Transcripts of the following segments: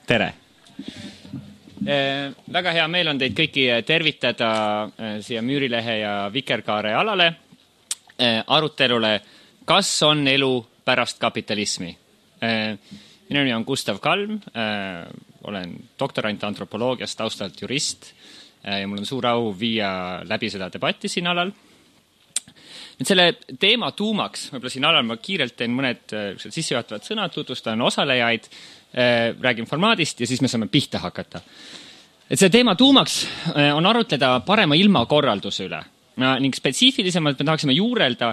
Tere! Väga hea meel on teid kõiki tervitada siia Müürilehe ja Vikerkaare alale arutelule, kas on elu pärast kapitalismi. Minu nimi on Gustav Kalm, olen doktorant antropoloogiast, taustalt jurist ja mul on suur au viia läbi seda debatti siin alal. Nüüd selle teema tuumaks, võib-olla siin alal ma kiirelt teen mõned sissejuhatavad sõnad, tutvustan osalejaid, räägin formaadist ja siis me saame pihta hakata. Et see teema tuumaks on arutleda parema ilmakorralduse üle ning spetsiifilisemalt me tahaksime juurelda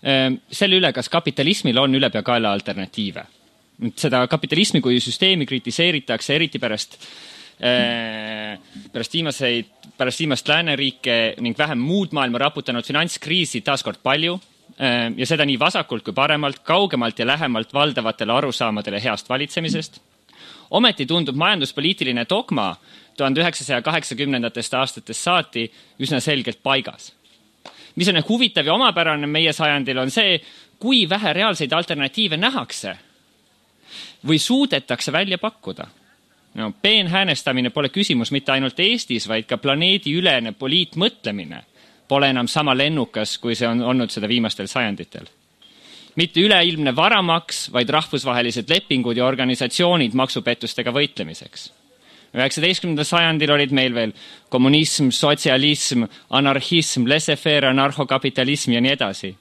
selle üle, kas kapitalismil on ülepeakaela alternatiive. Seda kapitalismi kui süsteemi kritiseeritakse eriti pärast viimast lääneriike ning vähem muud maailma raputanud finantskriisi taaskord palju ja seda nii vasakult kui paremalt, kaugemalt ja lähemalt valdavatele arusaamadele heast valitsemisest. Ometi tundub majanduspoliitiline dogma 1980. aastatest saati üsna selgelt paigas. Mis on huvitav ja omapärane meie sajandil on see, kui vähe reaalseid alternatiive nähakse või suudetakse välja pakkuda. Peenhäänestamine pole küsimus mitte ainult Eestis, vaid ka planeedi ülene poliitmõtlemine pole enam sama lennukas, kui see on olnud seda viimastel sajanditel. Mitte üleilmne varamaks, vaid rahvusvahelised lepingud ja organisatsioonid maksupettustega võitlemiseks. 19. sajandil olid meil veel kommunism, sotsialism, anarhism, laissez-faire, anarhokapitalism ja nii edasi.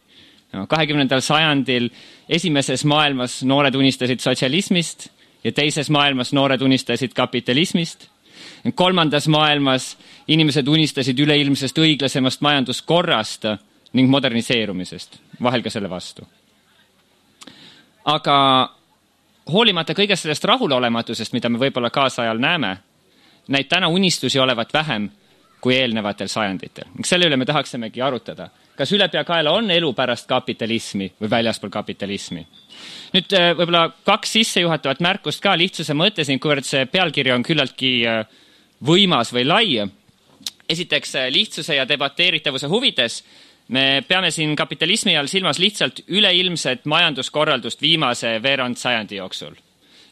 20. sajandil esimeses maailmas noored unistasid sotsialismist ja teises maailmas noored unistasid kapitalismist. Kolmandas maailmas inimesed unistasid üleilmsest õiglasemast majanduskorrast ning moderniseerumisest, vahel ka selle vastu. Aga hoolimata kõigest sellest rahulolematusest, mida me võib-olla kaasajal näeme, näib täna unistusi olevat vähem kui eelnevatel sajanditel. Selle üle me tahaksimegi arutada. Kas ülepeakaela on elu pärast kapitalismi või väljaspool kapitalismi? Nüüd võib-olla 2 sissejuhatavat märkust ka lihtsuse mõttes, kuivõrd see pealkiri on küllaltki võimas või lai. Esiteks lihtsuse ja debateeritavuse huvides me peame siin kapitalismi all silmas lihtsalt üleilmset majanduskorraldust viimase veerand sajandi jooksul.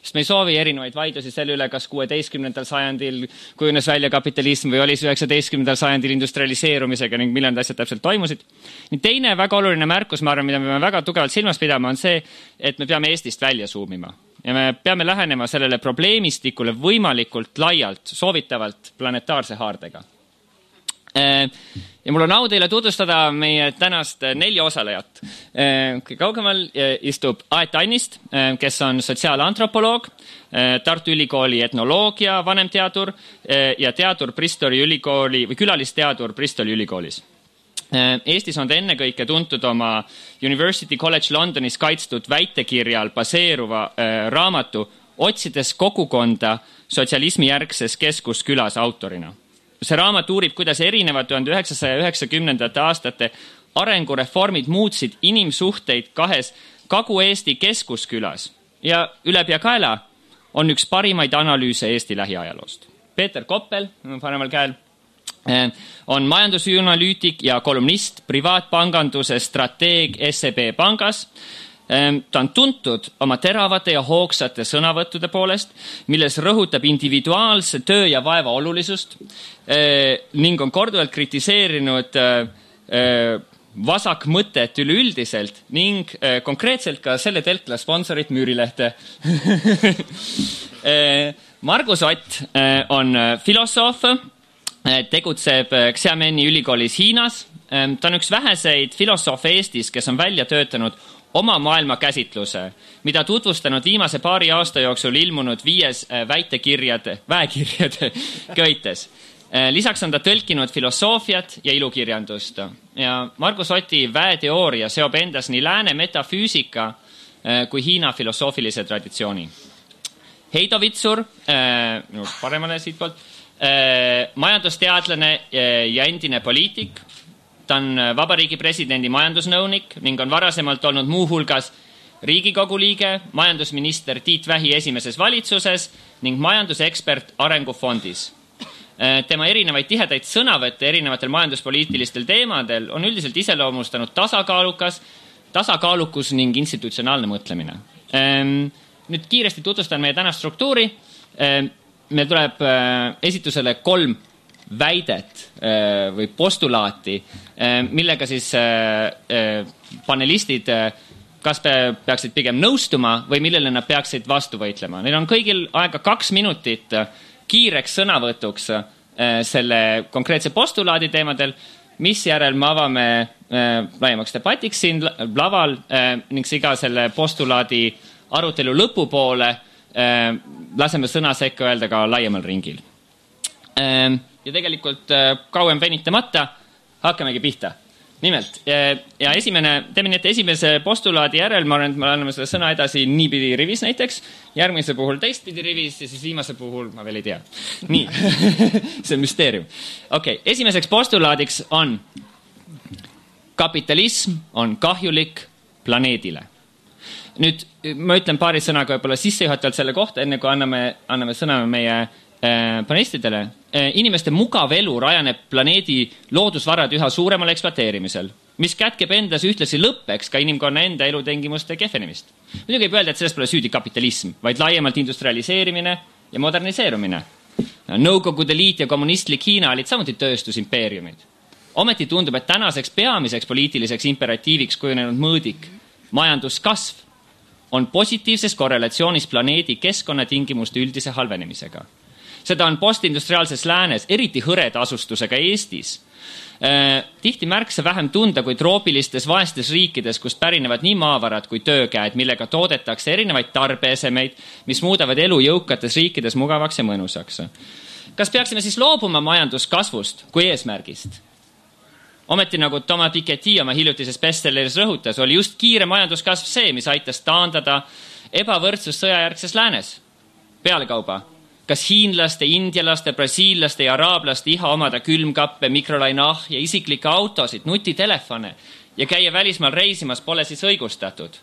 Sest me ei soovi erinevaid vaidlusi selle üle, kas 16. sajandil kujunes välja kapitalism või oli 19. sajandil industrialiseerumisega ning millal asjad täpselt toimusid. Teine väga oluline märkus, ma arvan, mida me peame väga tugevalt silmas pidama, on see, et me peame Eestist välja suumima. Ja me peame lähenema sellele probleemistikule võimalikult laialt, soovitavalt planetaarse haardega. Ja mul on au teile tutvustada meie tänast 4 osalejat. Kõige kaugemal istub Aet Annist, kes on sotsiaalantropoloog, Tartu Ülikooli etnoloogia vanemteadur ja teadur Bristoli ülikooli või külalisteadur Bristoli ülikoolis. Eestis on ta ennekõike tuntud oma University College Londonis kaitstud väitekirjal baseeruva raamatu Otsides kogukonda sotsialismi järgses keskuskülas autorina. See raamat uurib, kuidas erinevad 1990. aastate arengureformid muutsid inimsuhteid 2 Kagu-Eesti keskuskülas ja ülepeakaela on üks parimaid analüüse Eesti lähiajaloost. Peeter Koppel, paremal käel, on majandusanalüütik ja kolumnist, privaatpanganduse strateeg SEB pangas. Ta on tuntud oma teravate ja hoogsate sõnavõttude poolest, milles rõhutab individuaalse töö ja vaeva olulisust ning on korduvalt kritiseerinud vasakmõtet üleüldiselt ning konkreetselt ka selle telkla sponsorit Müürilehte. Margus Ott on filosoof, tegutseb Xiameni ülikoolis Hiinas. Ta on üks väheseid filosoofe Eestis, kes on välja töötanud oma maailmakäsitluse, mida tutvustanud viimase paari aasta jooksul ilmunud 5 väekirjade köites. Lisaks on ta tõlkinud filosoofiat ja ilukirjandust. Ja Margus Oti väeteooria seob endas nii lääne metafüüsika kui Hiina filosoofilise traditsiooni. Heido Vitsur, paremale siitpoolt, majandusteadlane ja endine poliitik. Ta on Vabariigi presidendi majandusnõunik ning on varasemalt olnud muuhulgas Riigikogu liige, majandusminister Tiit Vähi esimeses valitsuses ning majandusekspert Arengufondis. Tema erinevaid tihedaid sõnavõtte erinevatel majanduspoliitilistel teemadel on üldiselt iseloomustanud tasakaalukus ning institutsionaalne mõtlemine. Nüüd kiiresti tutvustan meie tänast struktuuri. meil tuleb esitusele 3 väidet või postulaati, millega siis panelistid kas peaksid pigem nõustuma või millele nad peaksid vastu võitlema. Neil on kõigil aega 2 minutit kiireks sõnavõtuks selle konkreetse postulaadi teemadel, mis järel me avame laiemaks debatiks siin laval ning iga selle postulaadi arutelu lõpupoole laseme sõna sekka öelda ka laiemal ringil. Ja tegelikult kauem venitamata hakkamegi pihta. Nimelt, ja teeme nii, et esimese postulaadi järel ma arvan, et me anname selle sõna edasi niipidi rivis näiteks, järgmise puhul teistpidi rivis ja siis viimase puhul ma veel ei tea. Nii, see on müsteerium. Okei, esimeseks postulaadiks on kapitalism on kahjulik planeedile. Nüüd ma ütlen paari sõnaga võib-olla sissejuhatavalt selle kohta, enne kui anname sõna meie panelistidele. Inimeste mugav elu rajaneb planeedi loodusvarad üha suuremal ekspluateerimisel, mis kätkeb endas ühtlasi lõppeks ka inimkonna enda elutingimuste kehvenemist. Muidugi ei öelda, et sellest pole süüdi kapitalism, vaid laiemalt industrialiseerimine ja moderniseerumine. Nõukogude Liit ja kommunistlik Hiina olid samuti tööstusimpeeriumid. Ometi tundub, et tänaseks peamiseks poliitiliseks imperatiiviks kujunenud mõõdik, majanduskasv, on positiivses korrelatsioonis planeedi keskkonnatingimuste üldise halvenemisega. Seda on postindustriaalses läänes, eriti hõreda asustusega Eestis. Tihti märksa vähem tunda kui troopilistes vaestes riikides, kust pärinevad nii maavarad kui töökäed, millega toodetakse erinevaid tarbeesemeid, mis muudavad elu jõukates riikides mugavaks ja mõnusaks. Kas peaksime siis loobuma majanduskasvust kui eesmärgist? Ometi nagu Thomas Piketty oma hiljutises bestselleris rõhutas, oli just kiire majanduskasv see, mis aitas taandada ebavõrdsus sõjajärgses läänes. Pealekauba, kas hiinlaste, indialaste, brasiillaste ja araablaste iha omada külmkappe, mikrolainah ja isiklikke autosid, nutitelefone ja käia välismaal reisimas pole siis õigustatud?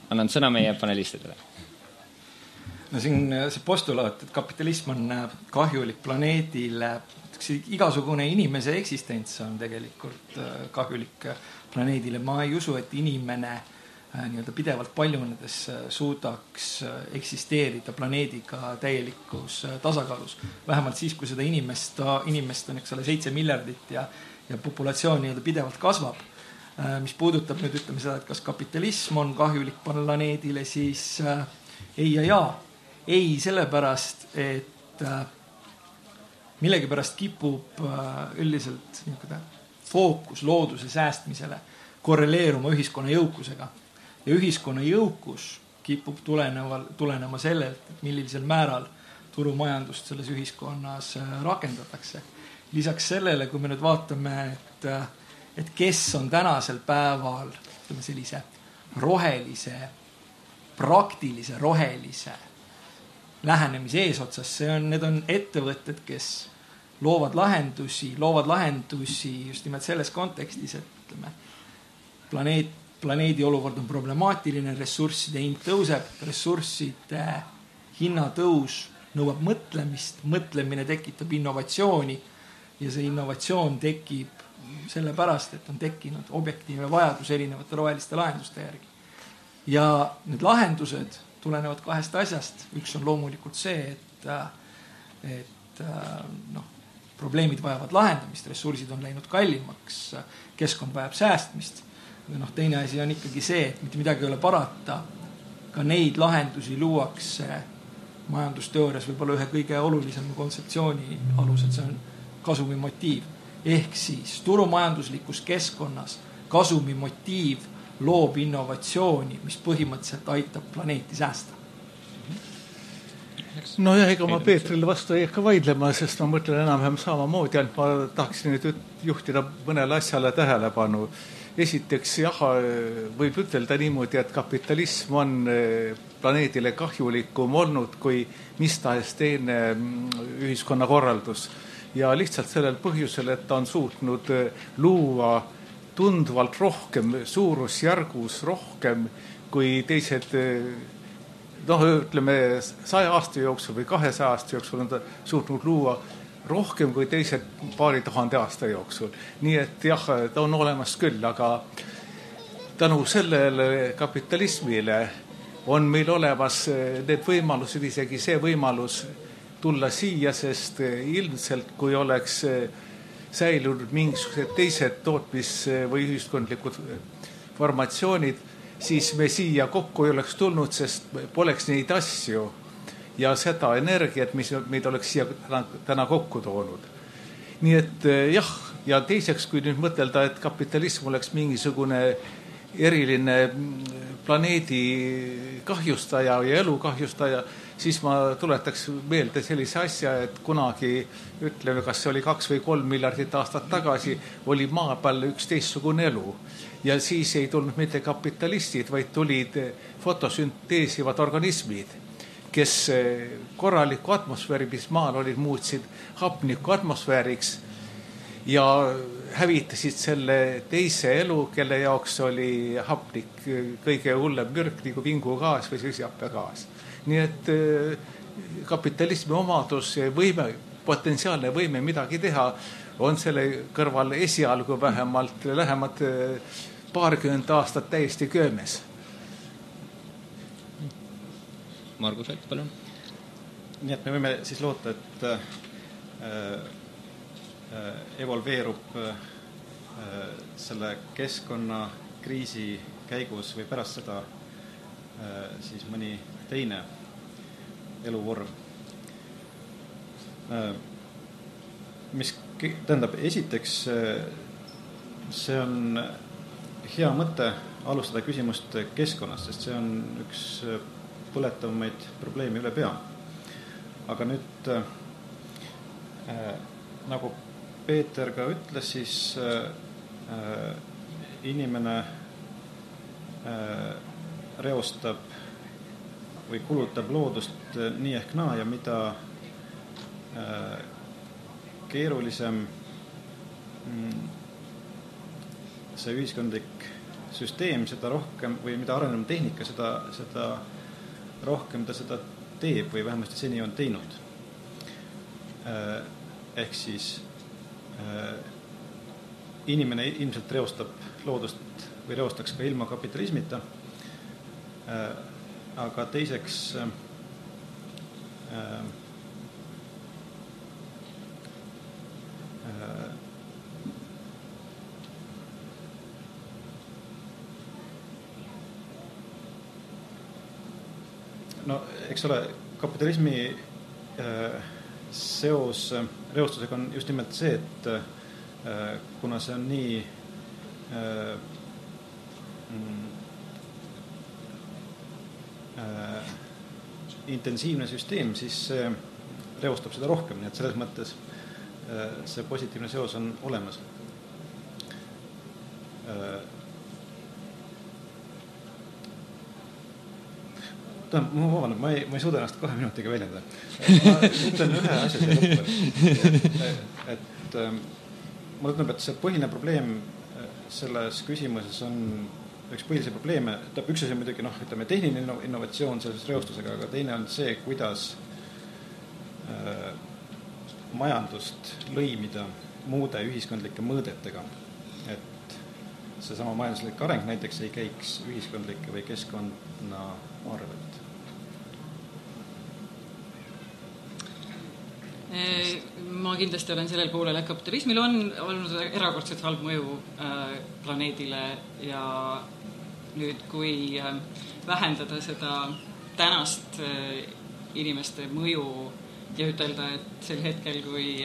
Annan sõna meie panelistidele. No siin see postulaat, et kapitalism on kahjulik planeedile, igasugune inimese eksistents on tegelikult kahjulik planeedile. Ma ei usu, et inimene pidevalt paljunedes suudaks eksisteerida planeediga täielikus tasakaalus. Vähemalt siis, kui seda inimest on 7 miljardit ja populatsioon pidevalt kasvab. Mis puudutab nüüd ütleme seda, et kas kapitalism on kahjulik planeedile, siis ei ja jaa. Ei sellepärast, et millegipärast kipub üldiselt fookus looduse säästmisele korreleeruma ühiskonna jõukusega. Ja ühiskonna jõukus kipub tulenema sellelt, et millisel määral turumajandust selles ühiskonnas rakendatakse. Lisaks sellele, kui me nüüd vaatame, et kes on tänasel päeval sellise rohelise, praktilise rohelise lähenemise eesotsas, need on ettevõtted, kes loovad lahendusi just nimelt selles kontekstis, et planeedi olukord on problemaatiline, ressursside hind tõuseb, ressursside hinnatõus nõuab mõtlemist, mõtlemine tekitab innovatsiooni ja see innovatsioon tekib sellepärast, et on tekkinud objektiivne vajadus erinevate roheliste lahenduste järgi. Ja need lahendused tulenevad 2 asjast. Üks on loomulikult see, et probleemid vajavad lahendamist, ressursid on läinud kallimaks, keskkond vajab säästmist. Teine asi on ikkagi see, et mitte midagi ei ole parata. Ka neid lahendusi luuakse majandusteoorias võib-olla ühe kõige olulisema kontseptsiooni alusel, see on kasumimotiiv. Ehk siis turumajanduslikus keskkonnas kasumimotiiv loob innovatsiooni, mis põhimõtteliselt aitab planeeti säästa. No ja ega ma Peetrile vastu ei hakka vaidlema, sest ma mõtlen enam-vähem samamoodi, ainult ma tahaksin nüüd juhtida mõnele asjale tähelepanu. Esiteks, võib ütelda niimoodi, et kapitalism on planeedile kahjulikum olnud kui mis tahes teine ühiskonnakorraldus. Ja lihtsalt sellel põhjusel, et ta on suutnud luua tundvalt rohkem, suurusjärgus rohkem kui teised, ütleme 100 aasta jooksul või 200 aasta jooksul on ta suutnud luua rohkem kui teised paari tuhande aasta jooksul. Nii et jah, ta on olemas küll, aga tänu sellele kapitalismile on meil olemas need võimalused, isegi see võimalus tulla siia, sest ilmselt kui oleks säilunud mingisugused teised tootmis- või ühiskondlikud formatsioonid, siis me siia kokku ei oleks tulnud, sest poleks neid asju ja seda energiat, mis meid oleks siia täna kokku toonud. Nii et jah, ja teiseks, kui nüüd mõtelda, et kapitalism oleks mingisugune eriline planeedi kahjustaja ja elu kahjustaja, siis ma tuletaks meelde sellise asja, et kunagi, ütleme, kas see oli 2 või 3 miljardit aastat tagasi, oli maa peal üks teistsugune elu. Ja siis ei tulnud mitte kapitalistid, vaid tulid fotosünteesivad organismid, kes korraliku atmosfääri, mis maal olid, muutsid hapniku atmosfääriks ja hävitasid selle teise elu, kelle jaoks oli hapnik kõige hullem mürk, nagu vingugaas või süsihappegaas. Nii et kapitalismi omadus, võime, potentsiaalne võime midagi teha, on selle kõrval esialgu vähemalt lähemad paarkümmend aastat täiesti köömes. Margus Alt, palun. Nii et me võime siis loota, et evolveerub selle keskkonnakriisi käigus või pärast seda siis mõni teine eluvorm. Mis tähendab, esiteks see on hea mõte alustada küsimust keskkonnast, sest see on üks põletavamaid probleeme üle pea. Aga nüüd nagu Peeter ka ütles, siis inimene reostab või kulutab loodust nii ehk naa ja mida keerulisem see ühiskondlik süsteem, seda rohkem või mida arenenud tehnika, seda rohkem ta seda teeb või vähemasti seni on teinud. Ehk siis inimene ilmselt reostab loodust või reostaks ka ilma kapitalismita, aga teiseks no eks ole, kapitalismi seos reostusega on just nimelt see, et kuna see on nii intensiivne süsteem, siis see reostab seda rohkem, nii et selles mõttes see positiivne seos on olemas. Ma vabandan, ma ei suuda ennast 2 minutiga väljendada. Ma ütlen ühe asja siia lõppu. Et mulle tundub, et see põhiline probleem selles küsimuses on üks põhilisi probleeme. Üks asi on muidugi ütleme, tehniline innovatsioon selles reostusega, aga teine on see, kuidas majandust lõimida muude ühiskondlike mõõdetega. Et seesama majanduslik areng näiteks ei käiks ühiskondlike või keskkonna arvelt. Ma kindlasti olen sellel poolel, et kapitalismil on olnud erakordselt halb mõju planeedile ja nüüd, kui vähendada seda tänast inimeste mõju ja ütelda, et sel hetkel, kui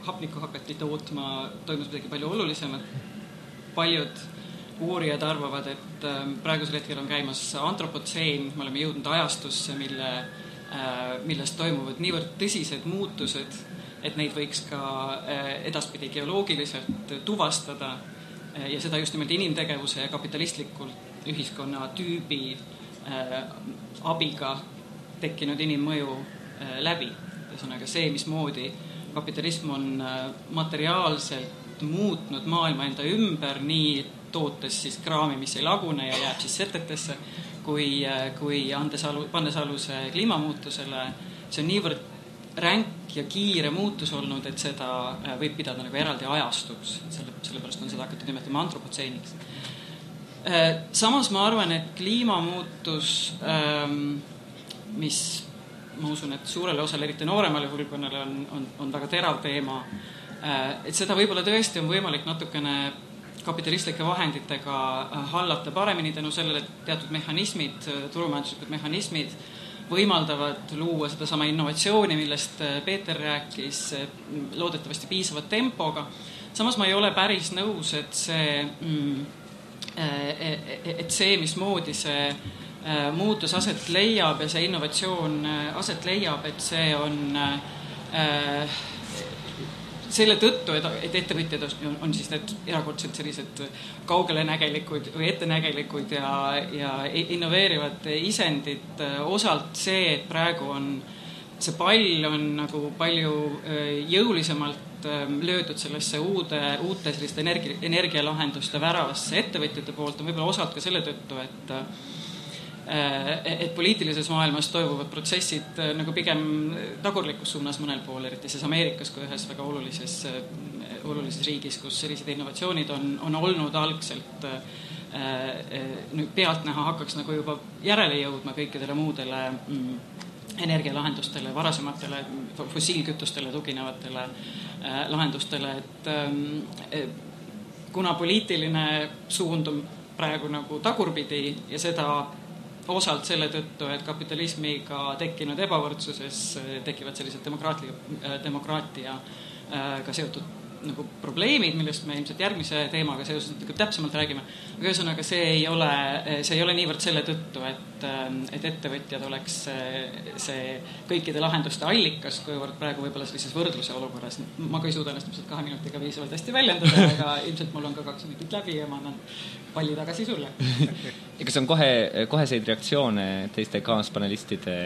hapnikku hakati tootma, toimus midagi palju olulisemat. Paljud uurijad arvavad, et praegusel hetkel on käimas antropotseen, me oleme jõudnud ajastusse, millest toimuvad niivõrd tõsised muutused, et neid võiks ka edaspidi geoloogiliselt tuvastada ja seda just nimelt inimtegevuse ja kapitalistlikult ühiskonna tüübi abiga tekkinud inimmõju läbi. Ühesõnaga see, mismoodi kapitalism on materiaalselt muutnud maailma enda ümber, nii tootes siis kraami, mis ei lagune ja jääb siis setetesse, kui pannes aluse kliimamuutusele. See on niivõrd ränk ja kiire muutus olnud, et seda võib pidada nagu eraldi ajastuks. Sellepärast on seda hakatud nimetama antropotseeniks. Samas ma arvan, et kliimamuutus, mis ma usun, et suurele osale, eriti nooremale hulkonnale on väga terav teema, et seda võib-olla tõesti on võimalik natukene kapitalistlike vahenditega hallata paremini tänu sellele, et teatud mehhanismid, turumajanduslikud mehhanismid võimaldavad luua sedasama innovatsiooni, millest Peeter rääkis, loodetavasti piisava tempoga. Samas ma ei ole päris nõus, et see, mismoodi see muutus aset leiab ja see innovatsioon aset leiab, et see on selle tõttu, et ettevõtjad on siis need erakordselt sellised kaugelenägelikud või ettenägelikud ja innoveerivad isendid. Osalt see, et praegu on see pall on nagu palju jõulisemalt löödud sellesse uute selliste energialahenduste väravasse ettevõtjate poolt, on võib-olla osalt ka selle tõttu, et poliitilises maailmas toimuvad protsessid nagu pigem tagurlikus suunas mõnel pool, eriti siis Ameerikas kui ühes väga olulises riigis, kus sellised innovatsioonid on olnud algselt pealtnäha hakkaks nagu juba järele jõudma kõikidele muudele energialahendustele, varasematele fossiilkütustele tuginevatele lahendustele, et kuna poliitiline suund on praegu nagu tagurpidi ja seda osalt selle tõttu, et kapitalismiga tekkinud ebavõrdsuses tekivad sellised demokraatiaga seotud nagu probleemid, millest me ilmselt järgmise teemaga seoses täpsemalt räägime. Aga ühesõnaga, see ei ole niivõrd selle tõttu, et ettevõtjad oleks see kõikide lahenduste allikas, kuivõrd praegu võib-olla sellises võrdluse olukorras. Ma ka ei suuda ennast 2 minutiga viisavalt hästi väljendada, aga ilmselt mul on ka 2 minutit läbi ja ma annan palli tagasi sulle. Ja kas on koheseid reaktsioone teiste kaaspanelistide?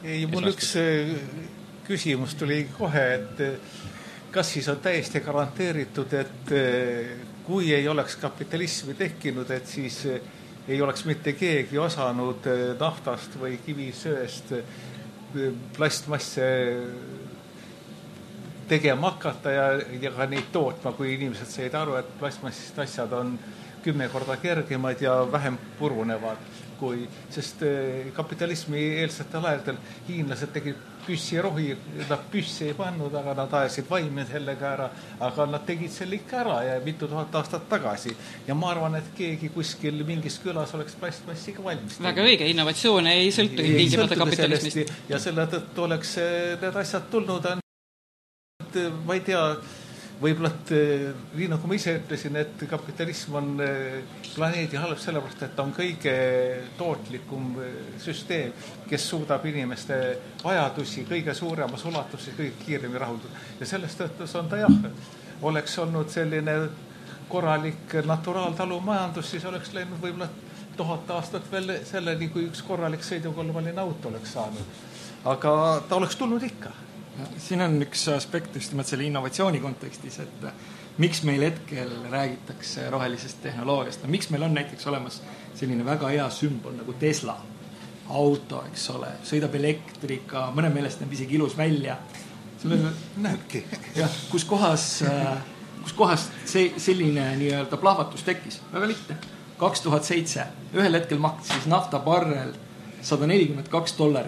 Ei, mul üks küsimus tuli kohe, et kas siis on täiesti garanteeritud, et kui ei oleks kapitalismi tekkinud, et siis ei oleks mitte keegi osanud naftast või kivisöest plastmasse tegema hakata ja ka neid tootma, kui inimesed said aru, et plastmassist asjad on 10 korda kergemad ja vähem purunevad, sest kapitalismi eelsetel aegadel hiinlased tegid püssirohi, nad püssi ei pannud, aga nad ajasid vaime sellega ära, aga nad tegid selle ikka ära ja mitu tuhat aastat tagasi. Ja ma arvan, et keegi kuskil mingis külas oleks plastmassi ka valmis. Väga õige, innovatsioon ei sõltu tingimata kapitalismist. Ja selle tõttu oleks need asjad tulnud, ma ei tea, võib-olla, nii nagu ma ise ütlesin, et kapitalism on planeedi halb sellepärast, et ta on kõige tootlikum süsteem, kes suudab inimeste vajadusi kõige suuremas ulatuses kõige kiiremini rahuldada. Ja sellest tõttus on ta oleks olnud selline korralik naturaaltalumajandus, siis oleks läinud võib-olla 1000 aastat veel selleni, kui üks korralik sõidukolmaline auto oleks saanud. Aga ta oleks tulnud ikka. Siin on üks aspekt just nimelt selle innovatsiooni kontekstis, et miks meil hetkel räägitakse rohelisest tehnoloogiast. Miks meil on näiteks olemas selline väga hea sümbol nagu Tesla auto, eks ole, sõidab elektrika, mõne meelest näeb isegi ilus välja. Näebki. Kus kohas selline nii-öelda plahvatus tekkis? Väga lihtne. 2007 ühel hetkel maksis naftabarrel $142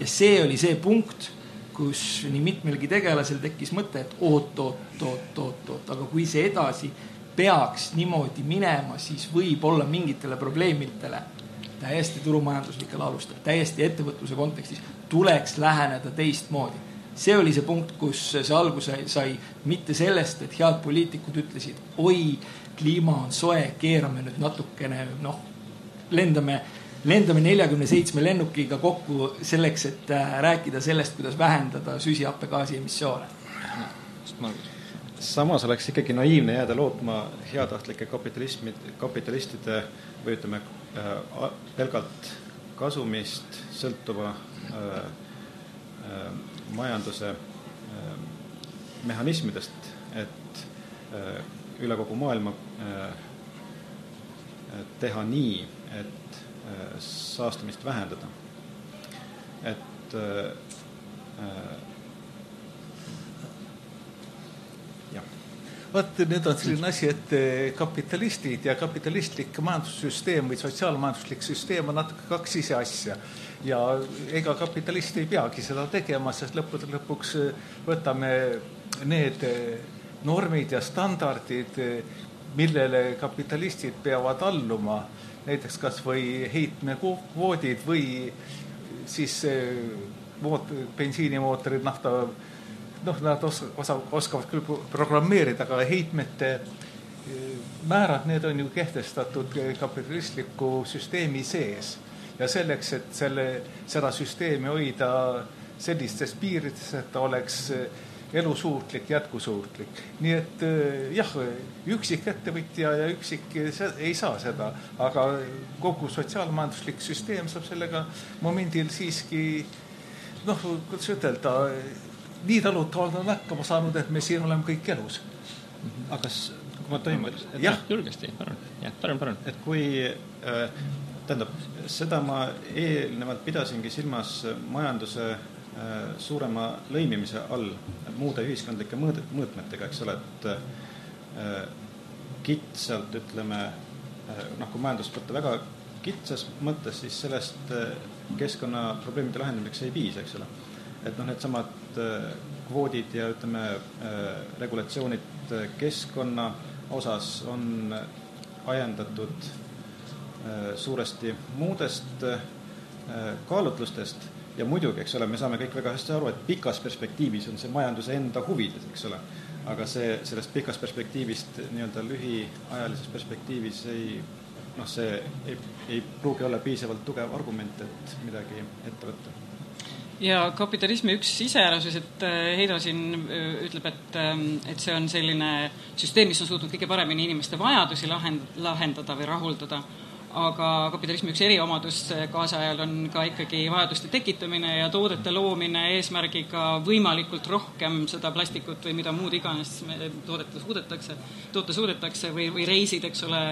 ja see oli see punkt, kus nii mitmelgi tegelasel tekkis mõte, et oot, aga kui see edasi peaks niimoodi minema, siis võib olla mingitele probleemidele täiesti turumajanduslikel alustel, täiesti ettevõtluse kontekstis tuleks läheneda teistmoodi. See oli see punkt, kus see alguse sai mitte sellest, et head poliitikud ütlesid, oi, kliima on soe, keerame nüüd natukene, lendame 47 lennukiga kokku selleks, et rääkida sellest, kuidas vähendada süsihappegaasi emissioone. Samas oleks ikkagi naiivne jääda lootma heatahtlike kapitalistide või ütleme pelgalt kasumist sõltuva majanduse mehhanismidest, et üle kogu maailma teha nii, et saastumist vähendada. Et jah. Vaat, nüüd on selline asi, et kapitalistid ja kapitalistlik majandussüsteem või sotsiaalmajanduslik süsteem on natuke kaks ise asja. Ja ega kapitalist ei peagi seda tegema, sest lõpuks võtame need normid ja standardid, millele kapitalistid peavad alluma, näiteks kas või heitmekvoodid või siis bensiinimootorid, nafta, nad oskavad küll programmeerida, aga heitmete määrad, need on ju kehtestatud kapitalistliku süsteemi sees. Ja selleks, et seda süsteemi hoida sellistes piirides, et ta oleks elusuutlik, jätkusuutlik. Nii et jah, üksik ettevõtja ja üksik ei saa seda, aga kogu sotsiaalmajanduslik süsteem saab sellega momendil siiski, kuidas ütelda, nii talutavalt on hakkama saanud, et me siin oleme kõik elus. Aga kui ma toimun... Jah, julgesti, parem. Et kui, tähendab, seda ma eelnevalt pidasingi silmas majanduse suurema lõimimise all muude ühiskondlike mõõtmetega, eks ole, et kitsalt, ütleme, kui majandust võtta väga kitsas mõttes, siis sellest keskkonnaprobleemide lahendamiseks ei piisa, eks ole. Et need samad kvoodid ja ütleme regulatsioonid keskkonna osas on ajendatud suuresti muudest kaalutlustest ja muidugi, eks ole, me saame kõik väga hästi aru, et pikas perspektiivis on see majanduse enda huvides, eks ole, aga sellest pikas perspektiivist nii-öelda lühiajalises perspektiivis see ei pruugi olla piisavalt tugev argument, et midagi ette võtta. Ja kapitalismi üks iseärasus, et Heido siin ütleb, et see on selline süsteem, mis on suutnud kõige paremini inimeste vajadusi lahendada või rahuldada, aga kapitalismi üks eriomadus kaasajal on ka ikkagi vajaduste tekitamine ja toodete loomine eesmärgiga võimalikult rohkem seda plastikut või mida muud iganes toota suudetakse või reisid, eks ole,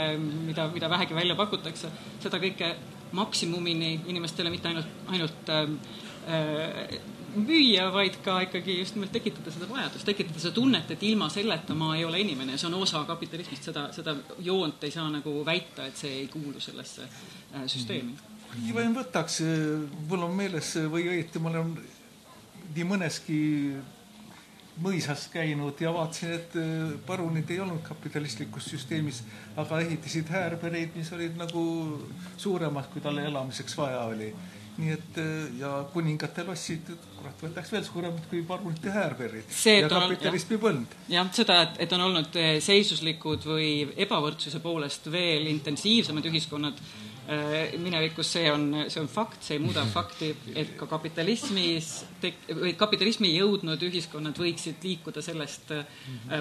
mida vähegi välja pakutakse, seda kõike maksimumini inimestele mitte ainult müüa, vaid ka ikkagi just nimelt tekitada seda vajadust, tekitada seda tunnet, et ilma selleta ma ei ole inimene. See on osa kapitalismist, seda joont ei saa nagu väita, et see ei kuulu sellesse süsteemi. Või võtaks, mul on meeles või õieti, ma olen nii mõneski mõisas käinud ja vaatasin, et parunid ei olnud kapitalistlikus süsteemis, aga ehitasid häärbereid, mis olid nagu suuremad, kui talle elamiseks vaja oli. Nii et ja kuningate lossid, kurat, võtaks veel suuremad kui parunite häärberid ja kapitalismi põld. Jah, seda, et on olnud seisuslikud või ebavõrdsuse poolest veel intensiivsemad ühiskonnad minevikus, see on fakt, see ei muuda fakti, et ka kapitalismi jõudnud ühiskonnad võiksid liikuda sellest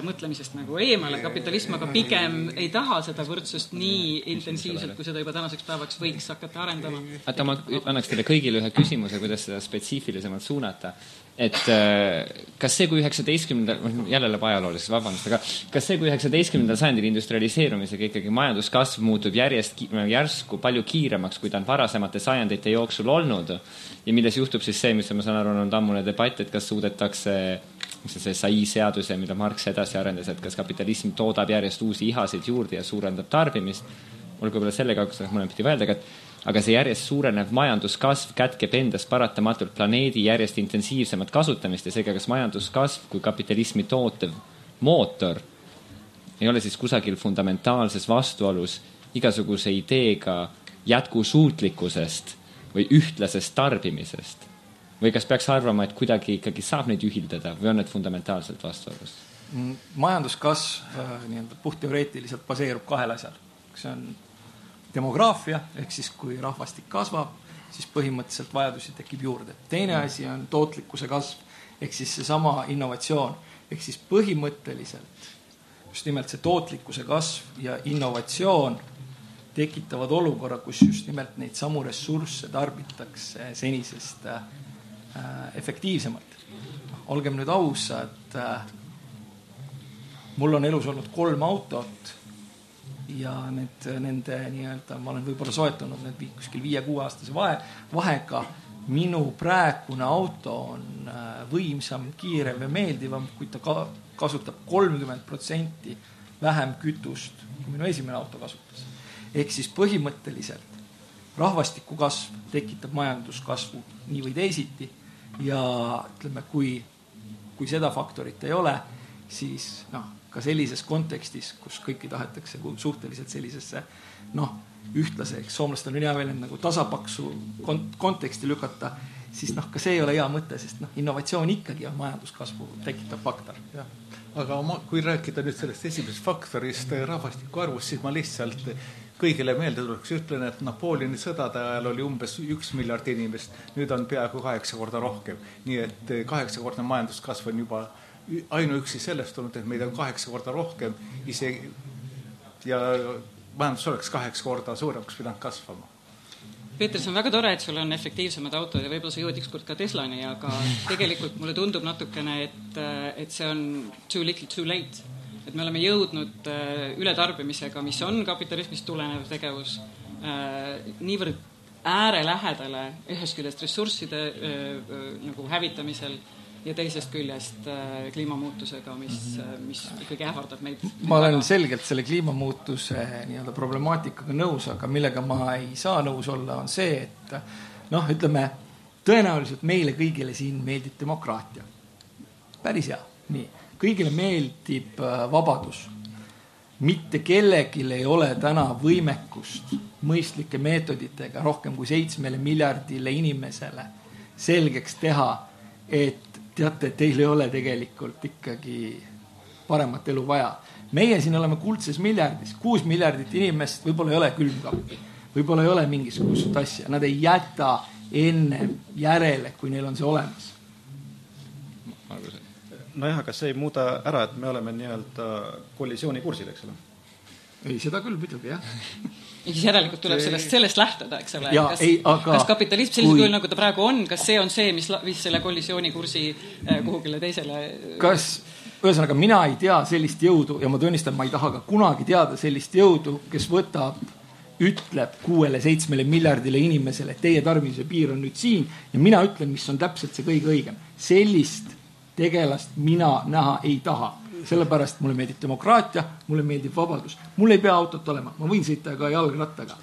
mõtlemisest nagu eemale. Kapitalism aga pigem ei taha seda võrdsust nii intensiivselt, kui seda juba tänaseks päevaks võiks hakata arendama. Aga ma annaks teile kõigile ühe küsimuse, kuidas seda spetsiifilisemalt suunata. Et kas see, kui 19. jälle läheb ajaloolises, vabandust, aga kas see, kui 19. sajandil industrialiseerumisega ikkagi majanduskasv muutub järsku palju kiiremaks, kui ta on varasemate sajandite jooksul olnud ja milles juhtub siis see, mis ma saan aru, on ammune debatt, et kas suudetakse see SAI seaduse, mida Marx edasi arendas, et kas kapitalism toodab järjest uusi ihasid juurde ja suurendab tarbimist. Olgu võib-olla sellega, kus mõned pidi öelda, aga see järjest suurenev majanduskasv kätkeb endas paratamatult planeedi järjest intensiivsemat kasutamist ja seega kas majanduskasv kui kapitalismi tootev mootor ei ole siis kusagil fundamentaalses vastuolus igasuguse ideega jätkusuutlikkusest või ühtlasest tarbimisest. Või kas peaks arvama, et kuidagi ikkagi saab neid ühildada või on need fundamentaalselt vastuolus? Majanduskasv puhtteoreetiliselt baseerub kahel asjal. See on demograafia, ehk siis kui rahvastik kasvab, siis põhimõtteliselt vajadusi tekib juurde. Teine asi on tootlikkuse kasv, ehk siis seesama innovatsioon. Ehk siis põhimõtteliselt just nimelt see tootlikkuse kasv ja innovatsioon tekitavad olukorra, kus just nimelt neid samu ressursse tarbitakse senisest efektiivsemalt. Olgem nüüd ausad, mul on elus olnud 3 autot ja nende nii-öelda, ma olen võib-olla soetanud need kuskil 5-6 aastase vahega, minu praegune auto on võimsam, kiirem ja meeldivam, kui ta kasutab 30% vähem kütust, kui minu esimene auto kasutas. Ehk siis põhimõtteliselt rahvastiku kasv tekitab majanduskasvu nii või teisiti ja ütleme, kui seda faktorit ei ole, siis ka sellises kontekstis, kus kõiki tahetakse suhteliselt sellisesse ühtlaseks, soomlastel on hea veel nagu tasapaksu konteksti lükata, siis ka see ei ole hea mõte, sest innovatsioon ikkagi on majanduskasvu tekitav faktor. Ja. Aga kui rääkida nüüd sellest esimesest faktorist rahvastiku arvust, siis ma lihtsalt kõigile meelde tuleks ütlen, et Napoleoni sõdade ajal oli umbes 1 miljard inimest, nüüd on peaaegu 8 korda rohkem. Nii et 8-kordne majanduskasv on juba ainuüksi sellest olnud, et meid on 8 korda rohkem isegi ja majandus oleks 8 korda suuremaks pidanud kasvama. Peeter, see on väga tore, et sul on efektiivsemad autod ja võib-olla sa jõud ükskord ka Teslani, aga tegelikult mulle tundub natukene, et see on too little too late. Et me oleme jõudnud ületarbimisega, mis on kapitalismist tulenev tegevus, niivõrd äärelähedale ühest küljest ressursside nagu hävitamisel ja teisest küljest kliimamuutusega, mis ikkagi ähvardab meid. Ma olen selgelt selle kliimamuutuse problemaatikaga nõus, aga millega ma ei saa nõus olla, on see, et ütleme, tõenäoliselt meile kõigile siin meeldib demokraatia. Päris hea. Nii. Kõigile meeldib vabadus. Mitte kellelgi ei ole täna võimekust mõistlike meetoditega rohkem kui 7 miljardile inimesele selgeks teha, et teate, teil ei ole tegelikult ikkagi paremat elu vaja. Meie siin oleme kuldses miljardis, 6 miljardit inimest, võib-olla ei ole külmkappi, võib-olla ei ole mingisugust asja. Nad ei jäta enne järele, kui neil on see olemas. Nojah, aga see ei muuda ära, et me oleme nii-öelda kollisiooni kursil, eks ole? Ei, seda küll muidugi, jah. Ja siis järelikult tuleb sellest lähtuda, eks ole. Kas kapitalism sellisel kujul, nagu ta praegu on, kas see on see, mis viis selle kollisiooni kursi kuhugile teisele? Ühesõnaga, mina ei tea sellist jõudu ja ma tunnistan, ma ei taha ka kunagi teada sellist jõudu, kes ütleb 6-7 miljardile inimesele, et teie tarbimise piir on nüüd siin ja mina ütlen, mis on täpselt see kõige õigem. Sellist tegelast mina näha ei taha. Sellepärast mulle meeldib demokraatia, mulle meeldib vabadus. Mul ei pea autot olema, ma võin sõita ka jalgrattaga.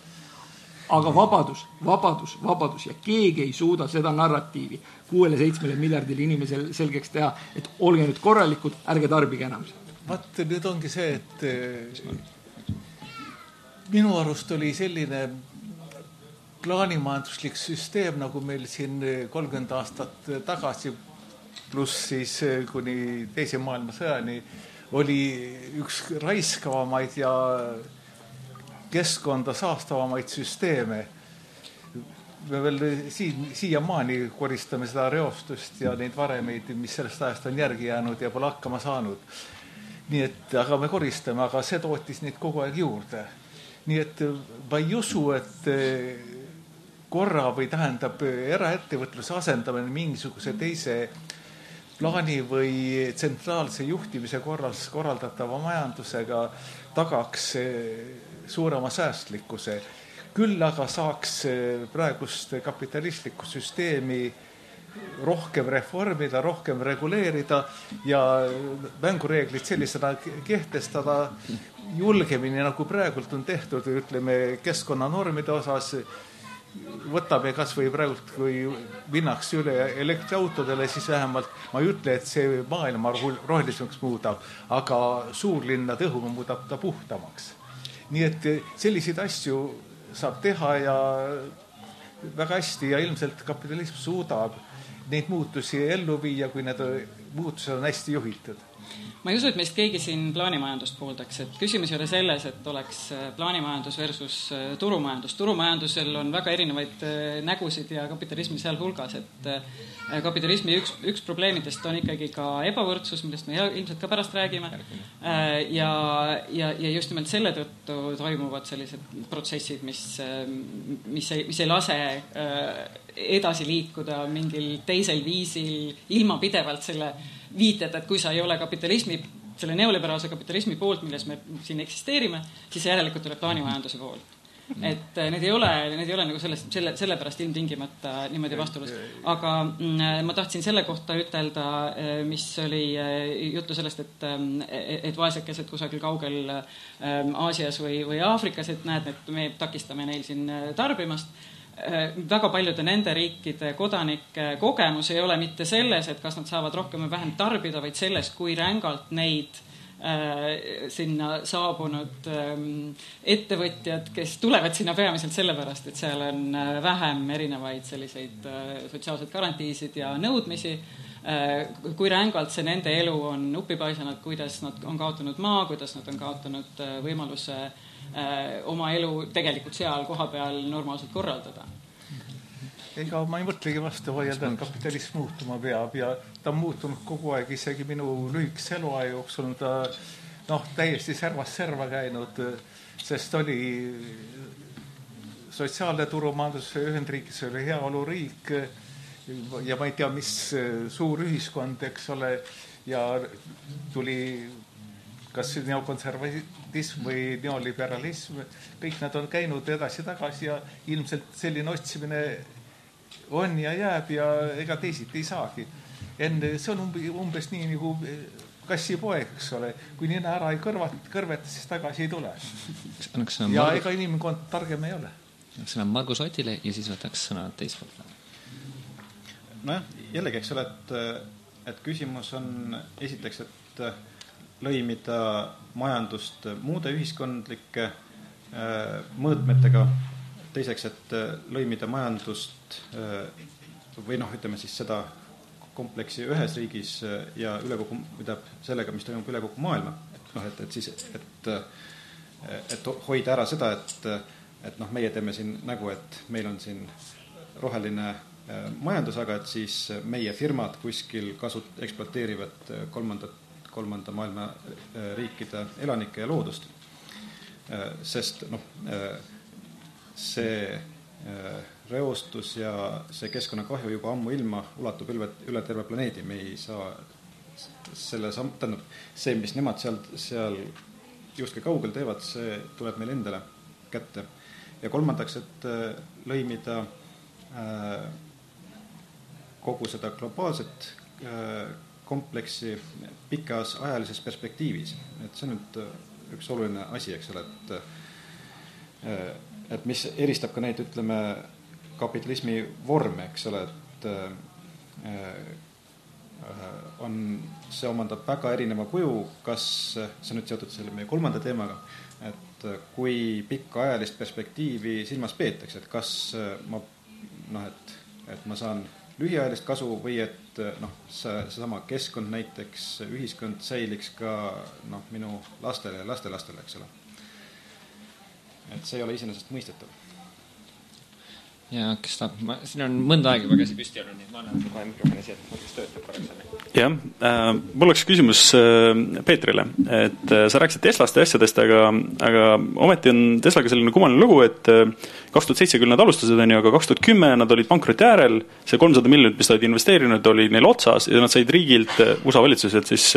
Aga vabadus ja keegi ei suuda seda narratiivi 6-7 miljardile inimesel selgeks teha, et olge nüüd korralikud, ärge tarbige enam. Vaat nüüd ongi see, et minu arust oli selline plaanimajanduslik süsteem, nagu meil siin 30 aastat tagasi pluss siis kuni teise maailmasõjani oli üks raiskavamaid ja keskkonda saastavamaid süsteeme. Me veel siiamaani koristame seda reostust ja neid varemeid, mis sellest ajast on järgi jäänud ja pole hakkama saanud. Nii et, aga me koristame, aga see tootis neid kogu aeg juurde. Nii et ma ei usu, et korra või tähendab eraettevõtluse asendamine mingisuguse teise plaani või tsentraalse juhtimise korraldatava majandusega tagaks suurema säästlikkuse. Küll aga saaks praegust kapitalistlikku süsteemi rohkem reformida, rohkem reguleerida ja mängureeglid sellisena kehtestada julgemini, nagu praegult on tehtud, ütleme, keskkonnanormide osas. Võtame kas või praegult, kui minnaks üle elektriautodele, siis vähemalt ma ei ütle, et see maailma rohelisemaks muudab, aga suurlinnade õhu muudab ta puhtamaks. Nii et selliseid asju saab teha ja väga hästi ja ilmselt kapitalism suudab neid muutusi ellu viia, kui need muutused on hästi juhitud. Ma ei usu, et meist keegi siin plaanimajandust pooldaks, et küsimus ei ole selles, et oleks plaanimajandus versus turumajandus. Turumajandusel on väga erinevaid nägusid ja kapitalismi seal hulgas, et kapitalismi üks probleemidest on ikkagi ka ebavõrdsus, millest me ilmselt ka pärast räägime. Ja just nimelt selle tõttu toimuvad sellised protsessid, mis ei lase edasi liikuda mingil teisel viisil ilma pidevalt selle viited, et kui sa ei ole kapitalismi, selle neoliberaalse kapitalismi poolt, milles me siin eksisteerime, siis järelikult tuleb plaanimajanduse poolt. et need ei ole nagu sellepärast ilmtingimata niimoodi vastuolus. Aga ma tahtsin selle kohta ütelda, mis oli juttu sellest, et vaesekesed kusagil kaugel Aasias või Aafrikas, et näed, et me takistame neil siin tarbimast. Väga paljude nende riikide kodanike kogemus ei ole mitte selles, et kas nad saavad rohkem või vähem tarbida, vaid selles, kui rängalt neid sinna saabunud ettevõtjad, kes tulevad sinna peamiselt sellepärast, et seal on vähem erinevaid selliseid sotsiaalseid garantiisid ja nõudmisi, kui rängalt see nende elu on upipaisanud, kuidas nad on kaotanud maa, kuidas nad on kaotanud võimaluse oma elu tegelikult seal koha peal normaalselt korraldada. Ega ma ei mõtlegi vastu vaielda, et kapitalism muutuma peab ja ta on muutunud kogu aeg, isegi minu lühikese eluaja jooksul on ta täiesti servast serva käinud, sest oli sotsiaalne turumajandus, Ühendriigis oli heaoluriik ja ma ei tea, mis suur ühiskond, eks ole, ja tuli kas neokonservatism või neoliberalism, kõik nad on käinud edasi-tagasi ja ilmselt selline otsimine on ja jääb ja ega teisiti ei saagi. See on umbes nii nagu kassipoeg, eks ole. Kui nina ära ei kõrveta, siis tagasi ei tule. Ja ega inimkond targem ei ole. Sõna Margus Otile ja siis võtaks sõna teispoolt. Nojah, jällegi, eks ole, et küsimus on esiteks, et lõimida majandust muude ühiskondlike mõõtmetega, teiseks, et lõimida majandust või ütleme siis seda kompleksi ühes riigis ja üle kogu, sellega, mis toimub üle kogu maailma. Et hoida ära seda, et meie teeme siin nägu, et meil on siin roheline majandus, aga et siis meie firmad kuskil ekspluateerivad kolmanda maailma riikide elanikke ja loodust. Sest see reostus ja see keskkonnakahju juba ammu ilma ulatub üle terve planeedi. Me ei saa see, mis nemad seal justkui kaugel teevad, see tuleb meil endale kätte. Ja kolmandaks, et lõimida kogu seda globaalset kompleksi pikas ajalises perspektiivis. Et see on nüüd üks oluline asi, eks ole, et mis eristab ka neid, ütleme, kapitalismi vorme, eks ole, et see omandab väga erineva kuju, kas see on nüüd seotud selle meie kolmanda teemaga, et kui pikka ajalist perspektiivi silmas peetakse, et kas et ma saan lühiajalist kasu või et seesama keskkond näiteks, ühiskond säiliks ka minu lastele ja lastelastele, eks ole. Et see ei ole iseenesest mõistetav. Ja kes tahab, siin on mõnda aega juba käsi püsti olnud, nii ma annan kohe mikrofoni siia, et kes töötab korraks. Jah, mul oleks küsimus Peetrile, et sa rääkisid Teslast ja asjadest, aga ometi on Teslaga selline kummaline lugu, et 2007 küll nad alustasid, aga 2010 nad olid pankroti äärel, see 300 miljonit, mis nad investeerinud, oli neil otsas ja nad said riigilt USA valitsuselt siis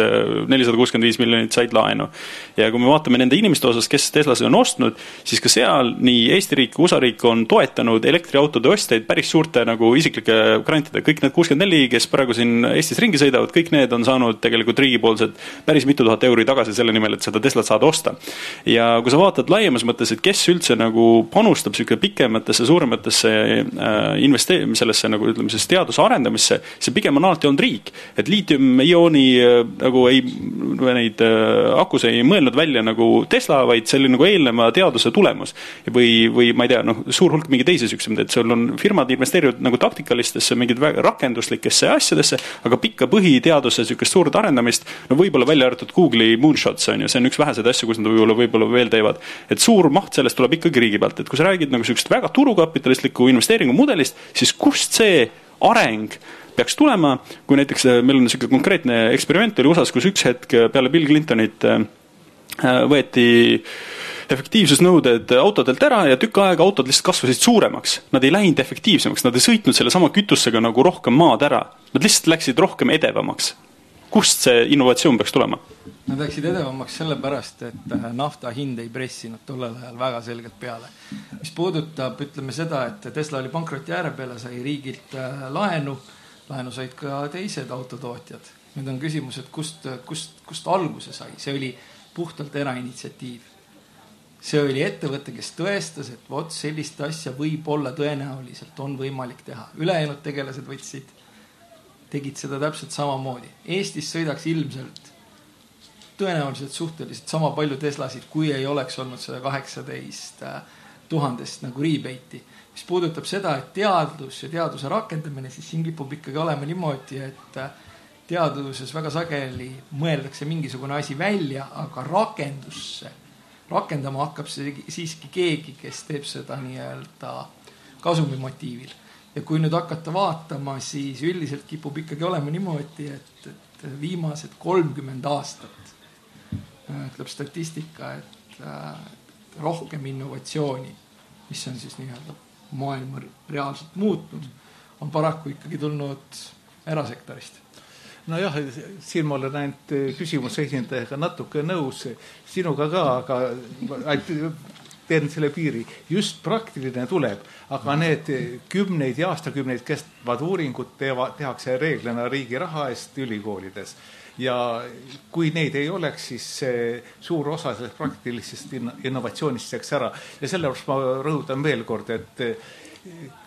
465 miljonit said laenu. Ja kui me vaatame nende inimeste osas, kes Teslasi on ostnud, siis ka seal nii Eesti riik, USA riik on toetanud elektriautode ostjaid päris suurte isiklike grantide. Kõik need 64, kes praegu siin Eestis ringi sõidavad, kõik need on saanud tegelikult riigipoolsed päris mitu tuhat euri tagasi selle nimel, et seda Teslat saada osta. Ja kui sa vaatad laiemas mõttes, et kes üldse panustab pikematesse, suurematesse sellesse ütleme, teaduse arendamisse, see pigem on alati olnud riik. Et liitium-iooni neid akus ei mõelnud välja Tesla, vaid see oli eelneva teaduse tulemus. Või ma ei tea, suur hulk mingi teisi süksemid, et sul on firmad investeerivad taktikalistesse, mingid rakenduslikesse asjadesse, aga pikka põhiteaduse suurt arendamist, võib-olla välja arvatud Google'i moonshots on ju, see on üks vähesed asju, kus nad võib-olla veel teevad. Et suur maht sellest tuleb ikkagi riigi pealt, et kui sa räägid väga turukapitalistliku investeeringumudelist, siis kust see areng peaks tulema, kui näiteks meil on selline konkreetne eksperiment oli USAs, kus üks hetk peale Bill Clintonit võeti efektiivsusnõuded autodelt ära ja tükk aega autod lihtsalt kasvasid suuremaks. Nad ei läinud efektiivsemaks, nad ei sõitnud selle sama kütusega rohkem maad ära. Nad lihtsalt läksid rohkem edevamaks. kust see innovatsioon peaks tulema? Nad läksid edevamaks sellepärast, et nafta hind ei pressinud tollel ajal väga selgelt peale. Mis puudutab, ütleme seda, et Tesla oli pankroti ääre peale, sai riigilt laenu said ka teised autotootjad. Nüüd on küsimus, et kust alguse sai. See oli puhtalt erainitsiatiiv. See oli ettevõte, kes tõestas, et vot sellist asja võib olla tõenäoliselt on võimalik teha. Ülejäänud tegelased tegid seda täpselt samamoodi. Eestis sõidaks ilmselt tõenäoliselt suhteliselt sama palju Teslasid, kui ei oleks olnud 118 000 nagu rebate'i. Mis puudutab seda, et teadus ja teaduse rakendamine, siis siin kipub ikkagi olema niimoodi, et teaduses väga sageli mõeldakse mingisugune asi välja, aga rakendama hakkab siiski keegi, kes teeb seda nii-öelda kasumimotiivil. Ja kui nüüd hakata vaatama, siis üldiselt kipub ikkagi olema niimoodi, et viimased 30 aastat ütleb statistika, et rohkem innovatsiooni, mis on siis nii-öelda maailma reaalselt muutnud, on paraku ikkagi tulnud erasektorist. Nojah, siin ma olen näinud küsimuse esindajaga natuke nõus, sinuga ka, aga teen selle piiri. Just praktiline tuleb, aga need kümneid ja aastakümneid kestvad uuringud tehakse reeglina riigi raha eest ülikoolides. Ja kui neid ei oleks, siis suur osa sellest praktilisest innovatsioonist jääks ära. Ja sellepärast ma rõhutan veel kord, et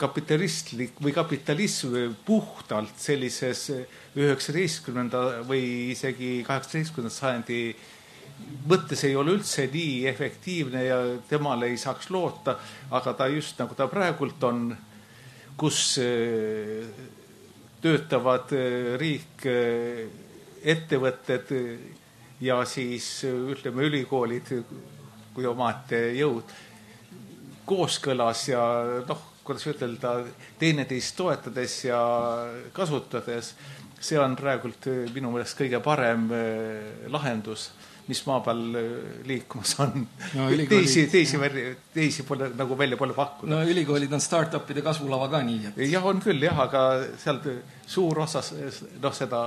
kapitalistlik või kapitalism puhtalt sellises 19. või isegi 18. sajandi mõttes ei ole üldse nii efektiivne ja temale ei saaks loota, aga ta just nagu ta praegult on, kus töötavad riik, ettevõtted ja siis ütleme ülikoolid kui omaette jõud kooskõlas ja kuidas ütelda, teineteist toetades ja kasutades, see on praegult minu meelest kõige parem lahendus, mis maa peal liikumas on. No, teisi pole, nagu välja pole pakkunud. No ülikoolid on start-upide kasvulava ka nii. Et... Jah, on küll, jah, aga sealt suur osa seda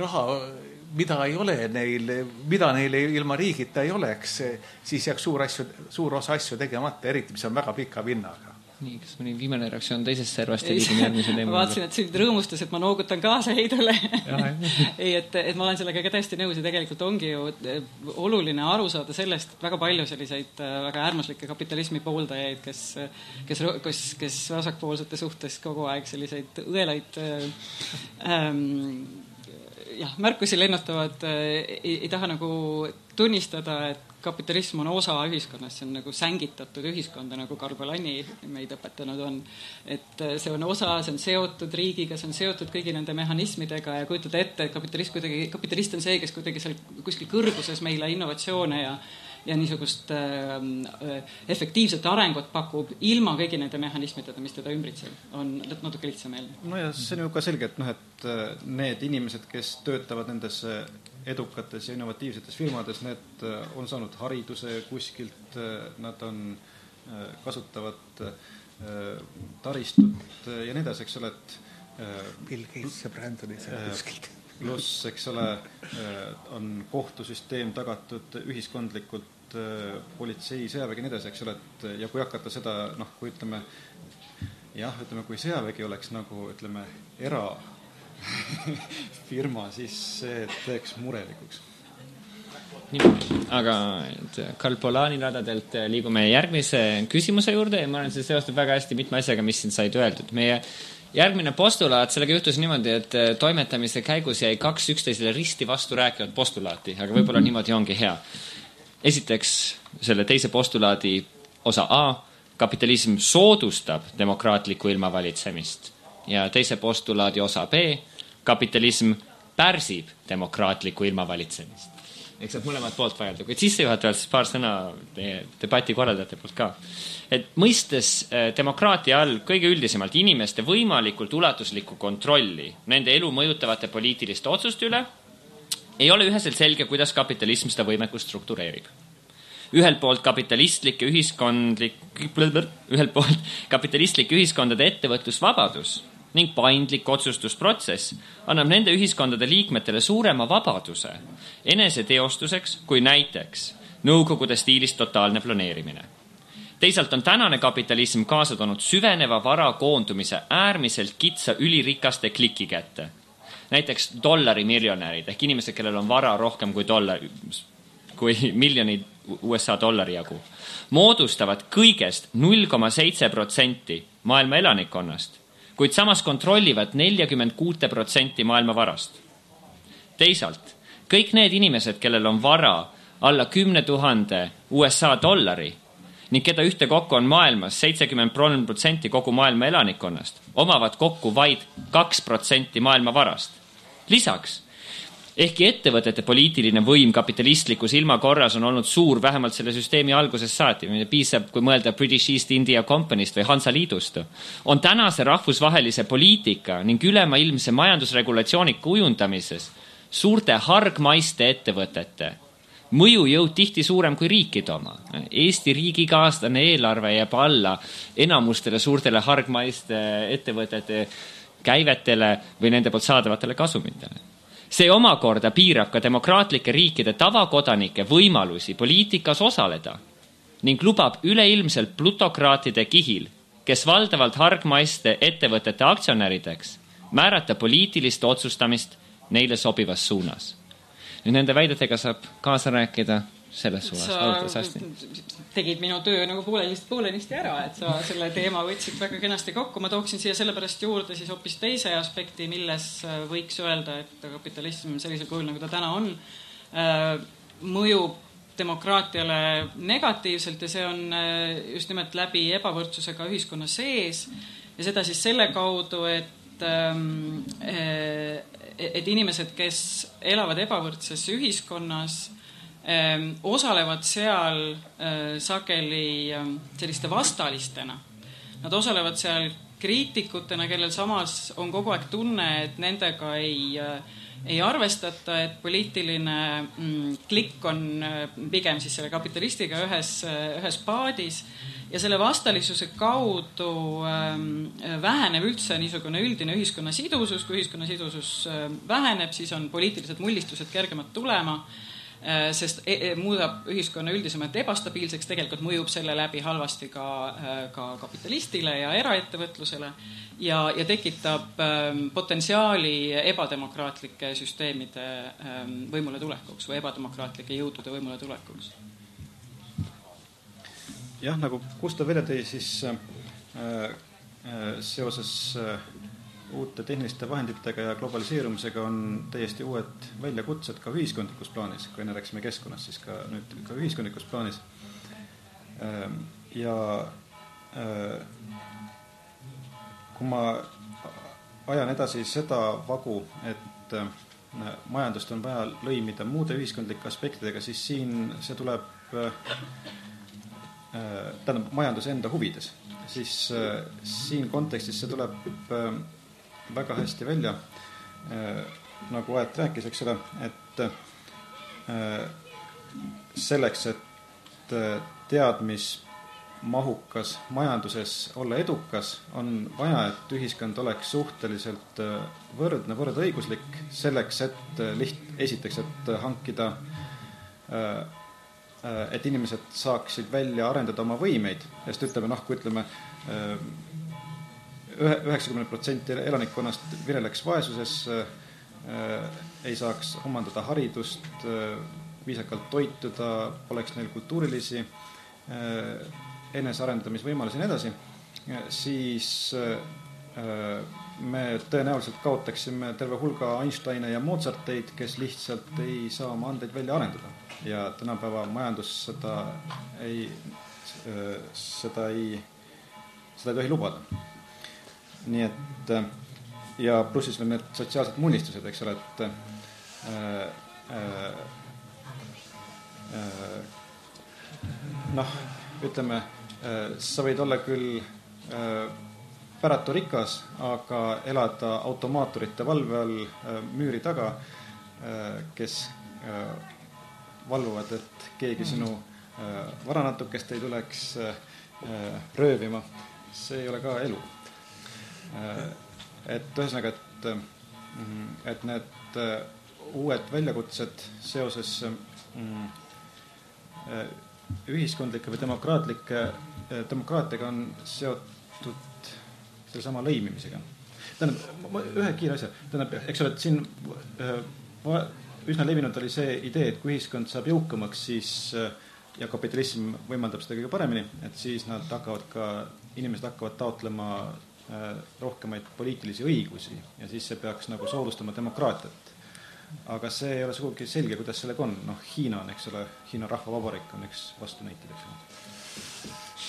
raha, mida ei ole neil, mida neil ilma riigita ei oleks, siis jääks suur osa asju tegemata, eriti mis on väga pika vinnaga. Nii, kas mõni viimane reaktsioon teisest servast ja liigum järgmise teema? Ma vaatasin, et sind rõõmustas, et ma noogutan kaasa Heidule. Ei, et ma olen sellega ka täiesti nõus ja tegelikult ongi ju oluline aru saada sellest, et väga palju selliseid väga äärmuslikke kapitalismi pooldajaid, kes vasakpoolsete suhtes kogu aeg selliseid õelaid märkusi lennutavad, ei taha nagu tunnistada, et kapitalism on osa ühiskonnast, see on nagu sängitatud ühiskonda, nagu Karl Polanyi meid õpetanud on. Et see on osa, see on seotud riigiga, see on seotud kõigi nende mehhanismidega ja kujutada ette, et kapitalist on see, kes kuidagi seal kuskil kõrguses meile innovatsioone ja niisugust efektiivset arengut pakub ilma kõigi nende mehhanismidega, mis teda ümbritseb, on natuke lihtsameelne. No ja see on ju ka selge, et need inimesed, kes töötavad nendes edukates ja innovatiivsetes firmades, need on saanud hariduse kuskilt, nad kasutavad taristut ja nii edasi, eks ole, et Bill Gates ja Brandoni kuskilt. Pluss, eks ole, on kohtusüsteem tagatud ühiskondlikult, politsei, sõjavägi nii edasi, eks ole, et ja kui hakata seda, kui ütleme, kui sõjavägi oleks nagu, ütleme, firma, siis see teeks murelikuks. Aga Karl Polani radadelt liigume järgmise küsimuse juurde ja ma olen see seostab väga hästi mitme asjaga, mis siin said öeldud. Meie järgmine postulaat, sellega juhtus niimoodi, et toimetamise käigus jäi 2 üksteisele risti vastu rääkivad postulaati, aga võib-olla niimoodi ongi hea. Esiteks selle teise postulaadi osa A, kapitalism soodustab demokraatlikku ilmavalitsemist ja teise postulaadi osa B, kapitalism pärsib demokraatlikku ilmavalitsemist. Eks saab mõlemad poolt vajada, kuid sissejuhatavalt siis paar sõna debati korraldajate poolt ka. Et mõistes demokraatia all kõige üldisemalt inimeste võimalikult ulatuslikku kontrolli nende elu mõjutavate poliitiliste otsuste üle ei ole üheselt selge, kuidas kapitalism seda võimekust struktureerib. Ühelt poolt kapitalistlik ühiskondade ettevõtlusvabadus ning paindlik otsustusprotsess annab nende ühiskondade liikmetele suurema vabaduse eneseteostuseks kui näiteks nõukogude stiilis totaalne planeerimine. Teisalt on tänane kapitalism kaasa toonud süveneva vara koondumise äärmiselt kitsa ülirikaste kliki kätte. Näiteks dollarimiljonärid ehk inimesed, kellel on vara rohkem kui miljonid USA dollari jagu, moodustavad kõigest 0,7% maailma elanikkonnast, kuid samas kontrollivad 46% maailma varast. Teisalt, kõik need inimesed, kellel on vara alla 10 000 USA dollari ning keda ühte kokku on maailmas 73% kogu maailma elanikkonnast, omavad kokku vaid 2% maailma varast. Lisaks, ehkki ettevõtete poliitiline võim kapitalistlikus ilmakorras on olnud suur vähemalt selle süsteemi algusest saati, piisab, kui mõelda British East India Company'st või Hansaliidust, on tänase rahvusvahelise poliitika ning ülemaailmse majandusregulatsiooni kujundamises suurte hargmaiste ettevõtete mõjujõud tihti suurem kui riikide oma. Eesti riigiga aastane eelarve jääb alla enamustele suurtele hargmaiste ettevõtete käivetele või nende poolt saadavatele kasumitele. See omakorda piirab ka demokraatlike riikide tavakodanike võimalusi poliitikas osaleda ning lubab üleilmselt plutokraatide kihil, kes valdavalt hargmaiste ettevõtete aktsionärideks, määrata poliitilist otsustamist neile sobivas suunas. Nüüd nende väidetega saab kaasa rääkida selles suunas. Sa tegid minu töö nagu poolenisti ära, et sa selle teema võtsid väga kenasti kokku. Ma tooksin siia sellepärast juurde siis hoopis teise aspekti, milles võiks öelda, et kapitalism sellisel kujul, nagu ta täna on, mõjub demokraatiale negatiivselt ja see on just nimelt läbi ebavõrdsusega ühiskonna sees ja seda siis selle kaudu, et inimesed, kes elavad ebavõrdses ühiskonnas, osalevad seal sageli selliste vastalistena. Nad osalevad seal kriitikutena, kellel samas on kogu aeg tunne, et nendega ei arvestata, et poliitiline klikk on pigem siis selle kapitalistiga ühes paadis ja selle vastalisuse kaudu väheneb üldse niisugune üldine ühiskonna sidusus. Kui ühiskonna sidusus väheneb, siis on poliitilised mullistused kergemad tulema, sest muudab ühiskonna üldisemalt ebastabiilseks, tegelikult mõjub selle läbi halvasti ka kapitalistile ja eraettevõtlusele ja tekitab potentsiaali ebademokraatlike süsteemide võimule tulekuks või ebademokraatlike jõudude võimule tulekuks. Jah, nagu Gustav välja tõi, siis seoses uute tehniliste vahenditega ja globaliseerumisega on täiesti uued väljakutsed ka ühiskondlikus plaanis. Kui enne rääksime keskkonnast, siis ka nüüd ka ühiskondlikus plaanis. Ja kui ma ajan edasi seda vagu, et majandust on vaja lõimida muude ühiskondlike aspektidega, siis siin see tuleb tähendab majanduse enda huvides. Siis siin kontekstis see tuleb väga hästi välja, nagu Aet rääkis, eks ole, et selleks, et teadmismahukas majanduses olla edukas, on vaja, et ühiskond oleks suhteliselt võrdne, võrdõiguslik selleks, et esiteks, et hankida, et inimesed saaksid välja arendada oma võimeid, sest ütleme, kui ütleme 90% elanikkonnast vireleks vaesuses, ei saaks omandada haridust, viisakalt toituda, poleks neil kultuurilisi enesearendamisvõimalusi ja nii edasi, siis me tõenäoliselt kaotaksime terve hulga Einsteine ja Mozarteid, kes lihtsalt ei saa oma andeid välja arendada. Ja tänapäeva majandus seda ei tohi lubada. Nii et ja plussis veel need sotsiaalsed mullistused, eks ole, et ütleme, sa võid olla küll päratu rikas, aga elada automaatorite valve all müüri taga, kes valvuvad, et keegi sinu varanatukest ei tuleks röövima. See ei ole ka elu. et ühesõnaga, et need uued väljakutsed seoses ühiskondlike või demokraatiaga on seotud selle sama lõimimisega. Tähendab, ühe kiire asja. Tähendab, eks ole, et siin üsna levinud oli see idee, et kui ühiskond saab jõukamaks, siis ja kapitalism võimaldab seda kõige paremini, et siis inimesed hakkavad taotlema rohkemaid poliitilisi õigusi ja siis see peaks nagu soodustama demokraatiat. Aga see ei ole sugugi selge, kuidas sellega on. Hiina on, eks ole, Hiina rahvavabariik on üks vastunäited, eks ole.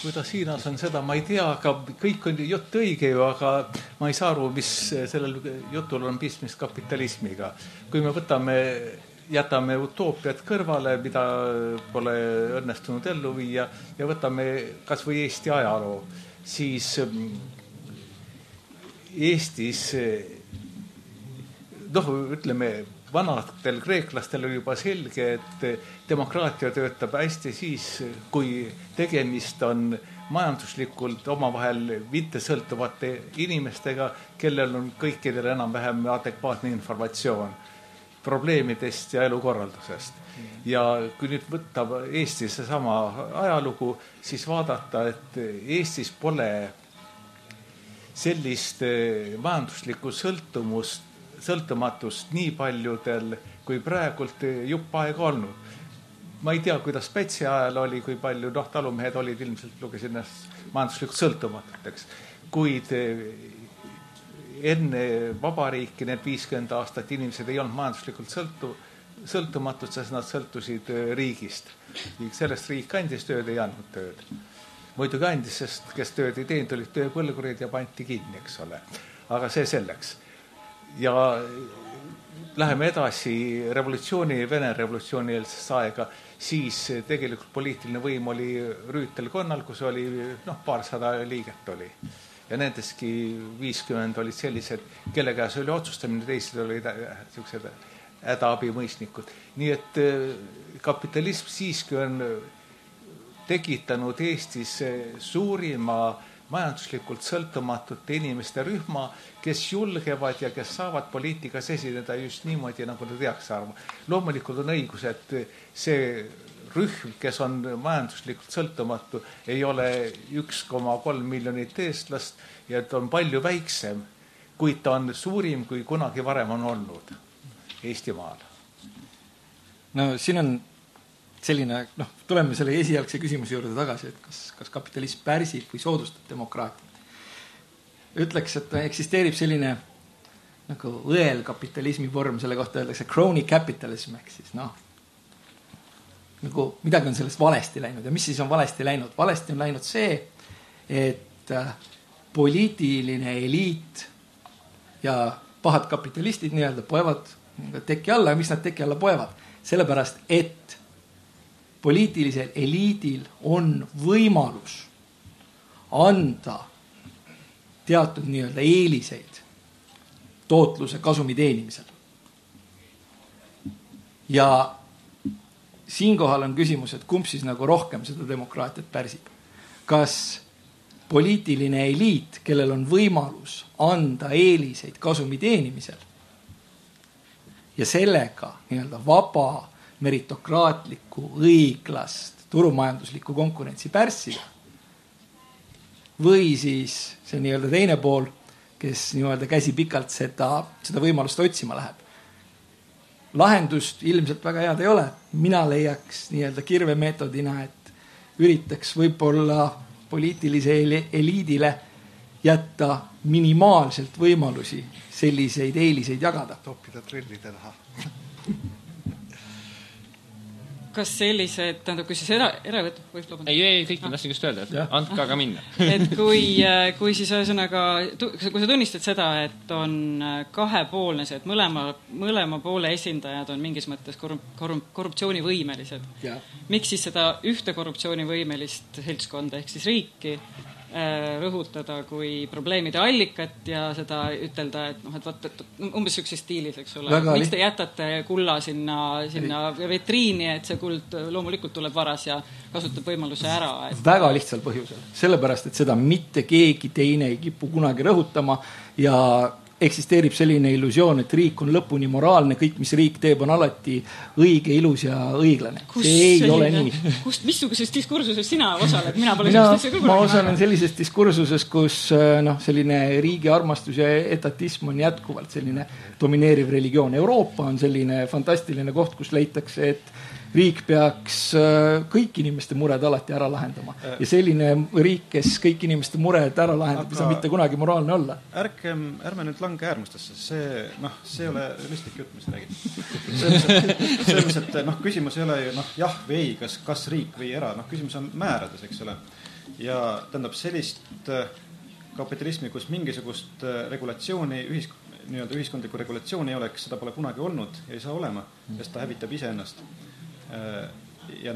Kuidas Hiinas on seda, ma ei tea, aga kõik on jutt õige ju, aga ma ei saa aru, mis sellel jutul on pistmist kapitalismiga. Kui me jätame utoopiat kõrvale, mida pole õnnestunud ellu viia ja võtame kas või Eesti ajaloo, siis Eestis, ütleme, vanadel kreeklastel oli juba selge, et demokraatia töötab hästi siis, kui tegemist on majanduslikult omavahel mittesõltuvate inimestega, kellel on kõikidel enam-vähem adekvaatne informatsioon probleemidest ja elukorraldusest. Ja kui nüüd võtta Eestis seesama ajalugu, siis vaadata, et Eestis pole sellist majanduslikku sõltumatust nii paljudel kui praegult jupp aega olnud. Ma ei tea, kuidas Pätsi ajal oli, kui palju talumehed olid, ilmselt lugesin majanduslikult sõltumatuteks. Kuid enne vabariiki need 50 aastat inimesed ei olnud majanduslikult sõltumatud, sest nad sõltusid riigist. Sellest riik andis tööd, ei andnud tööd. Muidugi andis, sest kes tööd ei teinud, olid tööpõlgurid ja panti kinni, eks ole. Aga see selleks. Ja läheme edasi Vene revolutsiooni eelsesse aega, siis tegelikult poliitiline võim oli Rüütelkonnal, kus oli paarsada liiget oli. Ja nendeski 50 olid sellised, kelle käes oli otsustamine, teised olid sellised hädaabimõistnikud. Nii et kapitalism siiski on tekitanud Eestis suurima majanduslikult sõltumatute inimeste rühma, kes julgevad ja kes saavad poliitikas esineda just niimoodi, nagu nad teaks arvama. Loomulikult on õigus, et see rühm, kes on majanduslikult sõltumatu, ei ole 1,3 miljonit eestlast ja et on palju väiksem, kuid ta on suurim, kui kunagi varem on olnud Eestimaal. No siin on selline, tuleme selle esialgse küsimuse juurde tagasi, et kas kapitalism pärsib või soodustab demokraatiat. Ütleks, et eksisteerib selline nagu õelkapitalismi vorm, selle kohta öeldakse crony capitalism, ehk siis nagu midagi on sellest valesti läinud. Ja mis siis on valesti läinud? Valesti on läinud see, et poliitiline eliit ja pahad kapitalistid nii-öelda poevad teki alla. Ja miks nad teki alla poevad? Sellepärast, et poliitilisel eliidil on võimalus anda teatud nii-öelda eeliseid tootluse kasumi teenimisel. Ja siinkohal on küsimus, et kumb siis nagu rohkem seda demokraatiat pärsib. Kas poliitiline eliit, kellel on võimalus anda eeliseid kasumi teenimisel ja sellega nii-öelda vaba meritokraatlikku, õiglast, turumajanduslikku konkurentsi pärssida. Või siis see nii-öelda teine pool, kes nii-öelda käsi pikalt seda võimalust otsima läheb. Lahendust ilmselt väga head ei ole. Mina leiaks nii-öelda kirvemeetodina, et üritaks võib-olla poliitilise eliidile jätta minimaalselt võimalusi selliseid eeliseid jagada. Toppida trillide taha. Kas sellised, tähendab, kui siis eravõtt võib lubada? Ei, kõik tahtsin just öelda, et andka aga minna. Et kui siis ühesõnaga, kui sa tunnistad seda, et on kahepoolne see, et mõlema poole esindajad on mingis mõttes korruptsioonivõimelised. Miks siis seda ühte korruptsioonivõimelist seltskonda ehk siis riiki rõhutada kui probleemide allikat ja seda ütelda, et umbes sellises stiilis, eks ole. Miks te jätate kulla sinna vetriini, et see kuld loomulikult tuleb varas ja kasutab võimaluse ära? Väga lihtsal põhjusel. Sellepärast, et seda mitte keegi teine ei kipu kunagi rõhutama ja eksisteerib selline illusioon, et riik on lõpuni moraalne, kõik, mis riik teeb, on alati õige, ilus ja õiglane. See ei ole nii. Missuguses diskursuses sina osaled? Mina osalen sellises diskursuses, kus selline riigi armastus ja etatism on jätkuvalt selline domineeriv religioon. Euroopa on selline fantastiline koht, kus leitakse, et riik peaks kõik inimeste mured alati ära lahendama. Ja selline riik, kes kõik inimeste mured ära lahendab, ei saa mitte kunagi moraalne olla. Ärme nüüd lange äärmustesse. See ei ole realistlik jutt, mis räägid. See, et küsimus ei ole ju jah või ei, kas riik või era. Küsimus on määrades, eks ole. Ja tähendab sellist kapitalismi, kus mingisugust regulatsiooni, ühiskondlikku regulatsiooni ei oleks, seda pole kunagi olnud ja ei saa olema, sest ta hävitab iseennast. Ja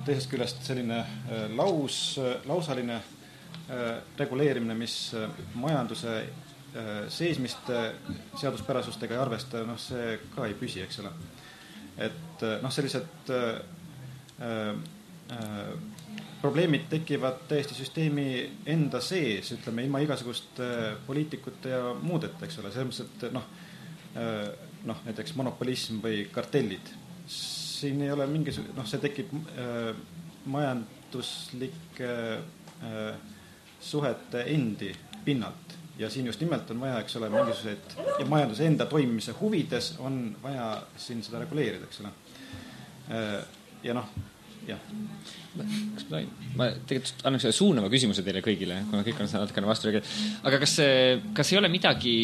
teisest küljest selline lausaline reguleerimine, mis majanduse seismist seaduspärasustega ei arvesta, see ka ei püsi, eks ole. Et sellised probleemid tekivad täiesti süsteemi enda sees, ütleme, ilma igasugust poliitikute ja muudeta, eks ole. Selles mõttes, et näiteks monopolism või kartellid. Siin ei ole see tekib majanduslike suhete endi pinnalt ja siin just nimelt on vaja, eks ole, mingisugused ja majanduse enda toimimise huvides on vaja siin seda reguleerida, eks ole. Ja jah. Ma tegelikult annaks selle suunava küsimuse teile kõigile, kuna kõik on natukene vastu. Aga kas ei ole midagi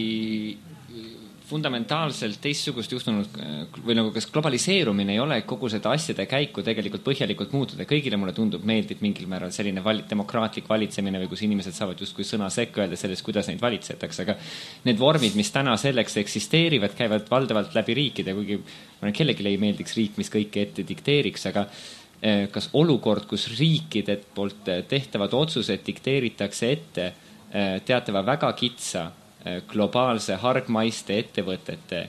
fundamentaalselt teistsugust juhtunud või kas globaliseerumine ei ole kogu seda asjade käiku tegelikult põhjalikult muutuda. Kõigile mulle meeldib mingil määral selline demokraatlik valitsemine või kus inimesed saavad justkui sõna sekka öelda sellest, kuidas neid valitsetakse. Aga need vormid, mis täna selleks eksisteerivad, käivad valdavalt läbi riikide, kuigi kellelegi ei meeldiks riik, mis kõike ette dikteeriks, aga kas olukord, kus riikide poolt tehtavad otsused dikteeritakse ette teatava väga kitsa globaalse hargmaiste ettevõtete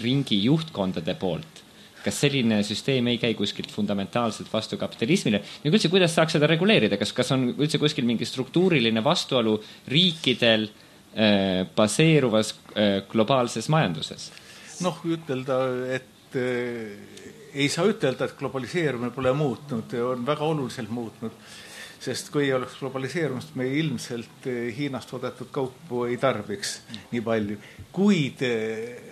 ringi juhtkondade poolt. Kas selline süsteem ei käi kuskilt fundamentaalselt vastu kapitalismile? Ja üldse, kuidas saaks seda reguleerida? Kas on üldse kuskil mingi struktuuriline vastuolu riikidel baseeruvas globaalses majanduses? Ütelda, et ei saa ütelda, et globaliseerumine pole muutnud, on väga oluliselt muutnud. Sest kui ei oleks globaliseerumist, me ilmselt Hiinast toodetud kaupu ei tarbiks nii palju. Kuid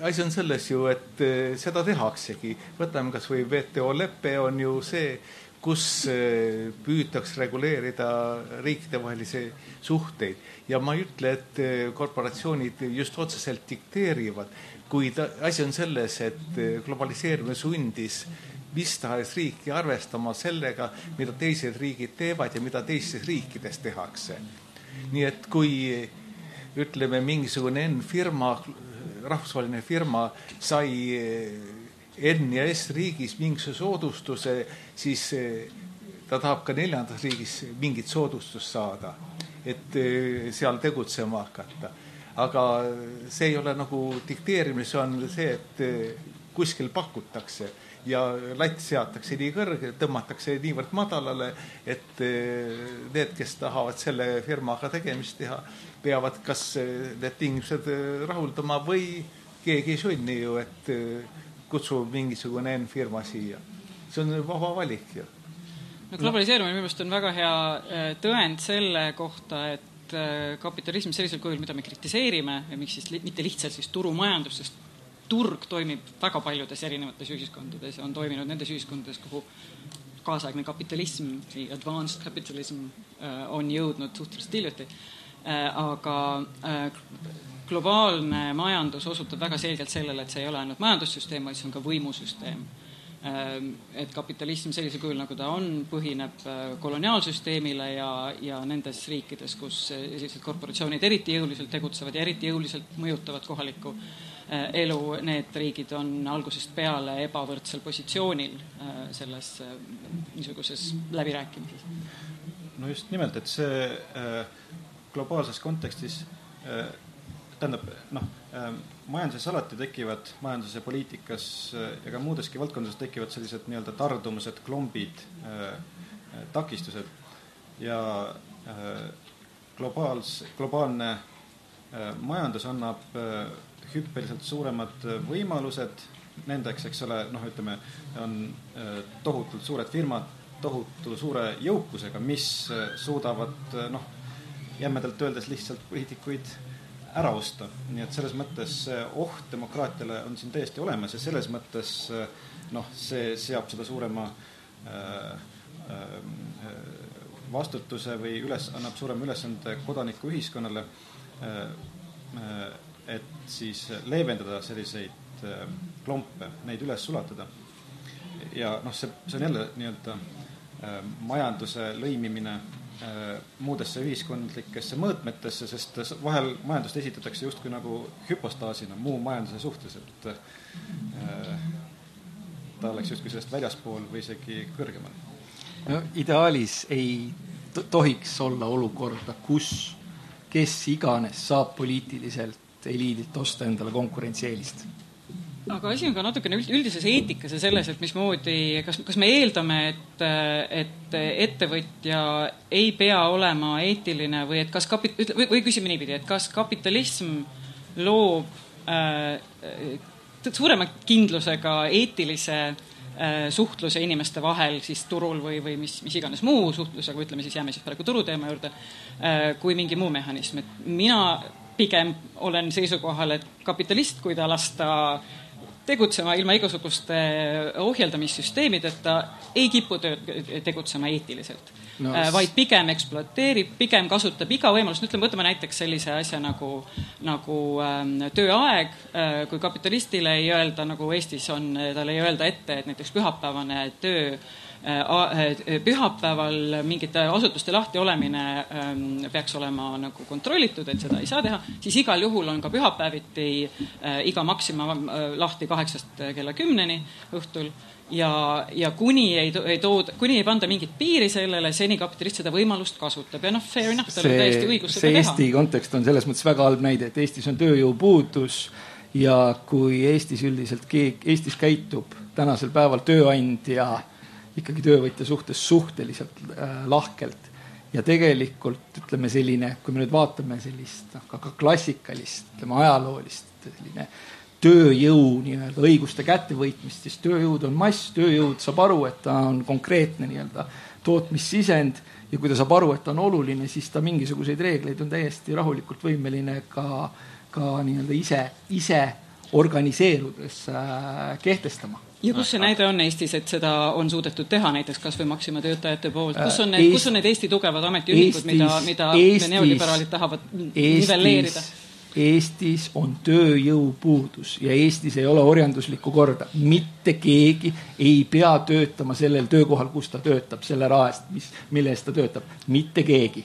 asi on selles ju, et seda tehaksegi. Võtame kas või WTO leppe on ju see, kus püütaks reguleerida riikide vahelisi suhteid. Ja ma ei ütle, et korporatsioonid just otseselt dikteerivad, kuid asi on selles, et globaliseerumine sundis mis tahes riiki arvestama sellega, mida teised riigid teevad ja mida teistes riikides tehakse. Nii et kui ütleme mingisugune firma, rahvusvaheline firma sai N ja S riigis mingisuguse soodustuse, siis ta tahab ka 4. riigis mingit soodustust saada, et seal tegutsema hakata. Aga see ei ole dikteerimine, see on see, et kuskil pakutakse ja latt seatakse nii kõrge, tõmmatakse niivõrd madalale, et need, kes tahavad selle firmaga tegemist teha, peavad kas need tingimused rahuldama või keegi ei sunni ju, et kutsub mingisugune firma siia. See on vaba valik ju. Globaliseerumine minu meelest on väga hea tõend selle kohta, et kapitalism sellisel kujul, mida me kritiseerime ja miks siis mitte lihtsalt siis turumajandus, sest turg toimib väga paljudes erinevates ühiskondades ja on toiminud nendes ühiskondades, kuhu kaasaegne kapitalism, advanced capitalism on jõudnud suhteliselt hiljuti. Aga globaalne majandus osutab väga selgelt sellele, et see ei ole ainult majandussüsteem, vaid see on ka võimusüsteem. Et kapitalism sellisel kujul, nagu ta on, põhineb koloniaalsüsteemile ja nendes riikides, kus sellised korporatsioonid eriti jõuliselt tegutsevad ja eriti jõuliselt mõjutavad kohalikku elu, need riigid on algusest peale ebavõrdsel positsioonil selles niisuguses läbirääkimises. No just nimelt, et see globaalses kontekstis tähendab, majanduses alati tekivad, majanduses ja poliitikas ja ka muudeski valdkondades tekivad sellised nii-öelda tardumused, klombid, takistused ja globaalne majandus annab hüppeliselt suuremad võimalused nendeks, eks ole, ütleme, on tohutult suured firmad, tohutu suure jõukusega, mis suudavad, jämmedalt öeldes lihtsalt poliitikuid ära osta. Nii et selles mõttes oht demokraatiale on siin täiesti olemas ja selles mõttes see seab seda suurema vastutuse või annab suurema ülesande kodaniku ühiskonnale, et siis leevendada selliseid klompe, neid üles sulatada. Ja see on jälle nii-öelda majanduse lõimimine muudesse ühiskondlikesse mõõtmetesse, sest vahel majandust esitatakse justkui nagu hüpostaasina muu majanduse suhtes, et ta oleks justkui sellest väljaspool või isegi kõrgemal. Ideaalis ei tohiks olla olukorda, kus kes iganes saab poliitiliselt eliidilt osta endale konkurentsieelist. Aga asi on ka natukene üldises eetikas ja selles, et mismoodi, kas me eeldame, et ettevõtja ei pea olema eetiline või, et või küsime niipidi, et kas kapitalism loob suurema kindlusega eetilise suhtluse inimeste vahel siis turul või mis iganes muu suhtlus, aga ütleme siis jääme siis praegu turuteema juurde, kui mingi muu mehhanism. Et mina pigem olen seisukohal, et kapitalist, kui ta lasta tegutsema ilma igasuguste ohjeldamissüsteemideta, ei kipu tegutsema eetiliselt, vaid pigem ekspluateerib, pigem kasutab iga võimalust. Võtame näiteks sellise asja nagu tööaeg, kui kapitalistile ei öelda, nagu Eestis on, talle ei öelda ette, et näiteks pühapäevane pühapäeval mingite asutuste lahti olemine peaks olema nagu kontrollitud, et seda ei saa teha, siis igal juhul on ka pühapäeviti iga maksima lahti 8 kella 10 õhtul ja kuni ei panda mingit piiri sellele, seni kapitalist seda võimalust kasutab ja fair enough, tal on täiesti õigus seda teha. Eesti kontekst on selles mõttes väga halb näide, et Eestis on tööjõupuudus ja kui Eestis üldiselt Eestis käitub tänasel päeval tööandja ikkagi töövõtja suhtes suhteliselt lahkelt ja tegelikult ütleme selline, kui me nüüd vaatame sellist ka klassikalist, ütleme ajaloolist selline tööjõu nii-öelda õiguste kättevõitmist, siis tööjõud on mass, tööjõud saab aru, et ta on konkreetne nii-öelda tootmissisend ja kui ta saab aru, et ta on oluline, siis ta mingisuguseid reegleid on täiesti rahulikult võimeline ka nii-öelda ise organiseerudes kehtestama. Ja kus see näide on Eestis, et seda on suudetud teha näiteks kas või Maxima töötajate poolt? Kus on need Eesti tugevad ametiühingud, mida neoliberaalid tahavad nivelleerida? Eestis on tööjõupuudus ja Eestis ei ole orjanduslikku korda. Mitte keegi ei pea töötama sellel töökohal, kus ta töötab, selle raest, mille eest ta töötab. Mitte keegi.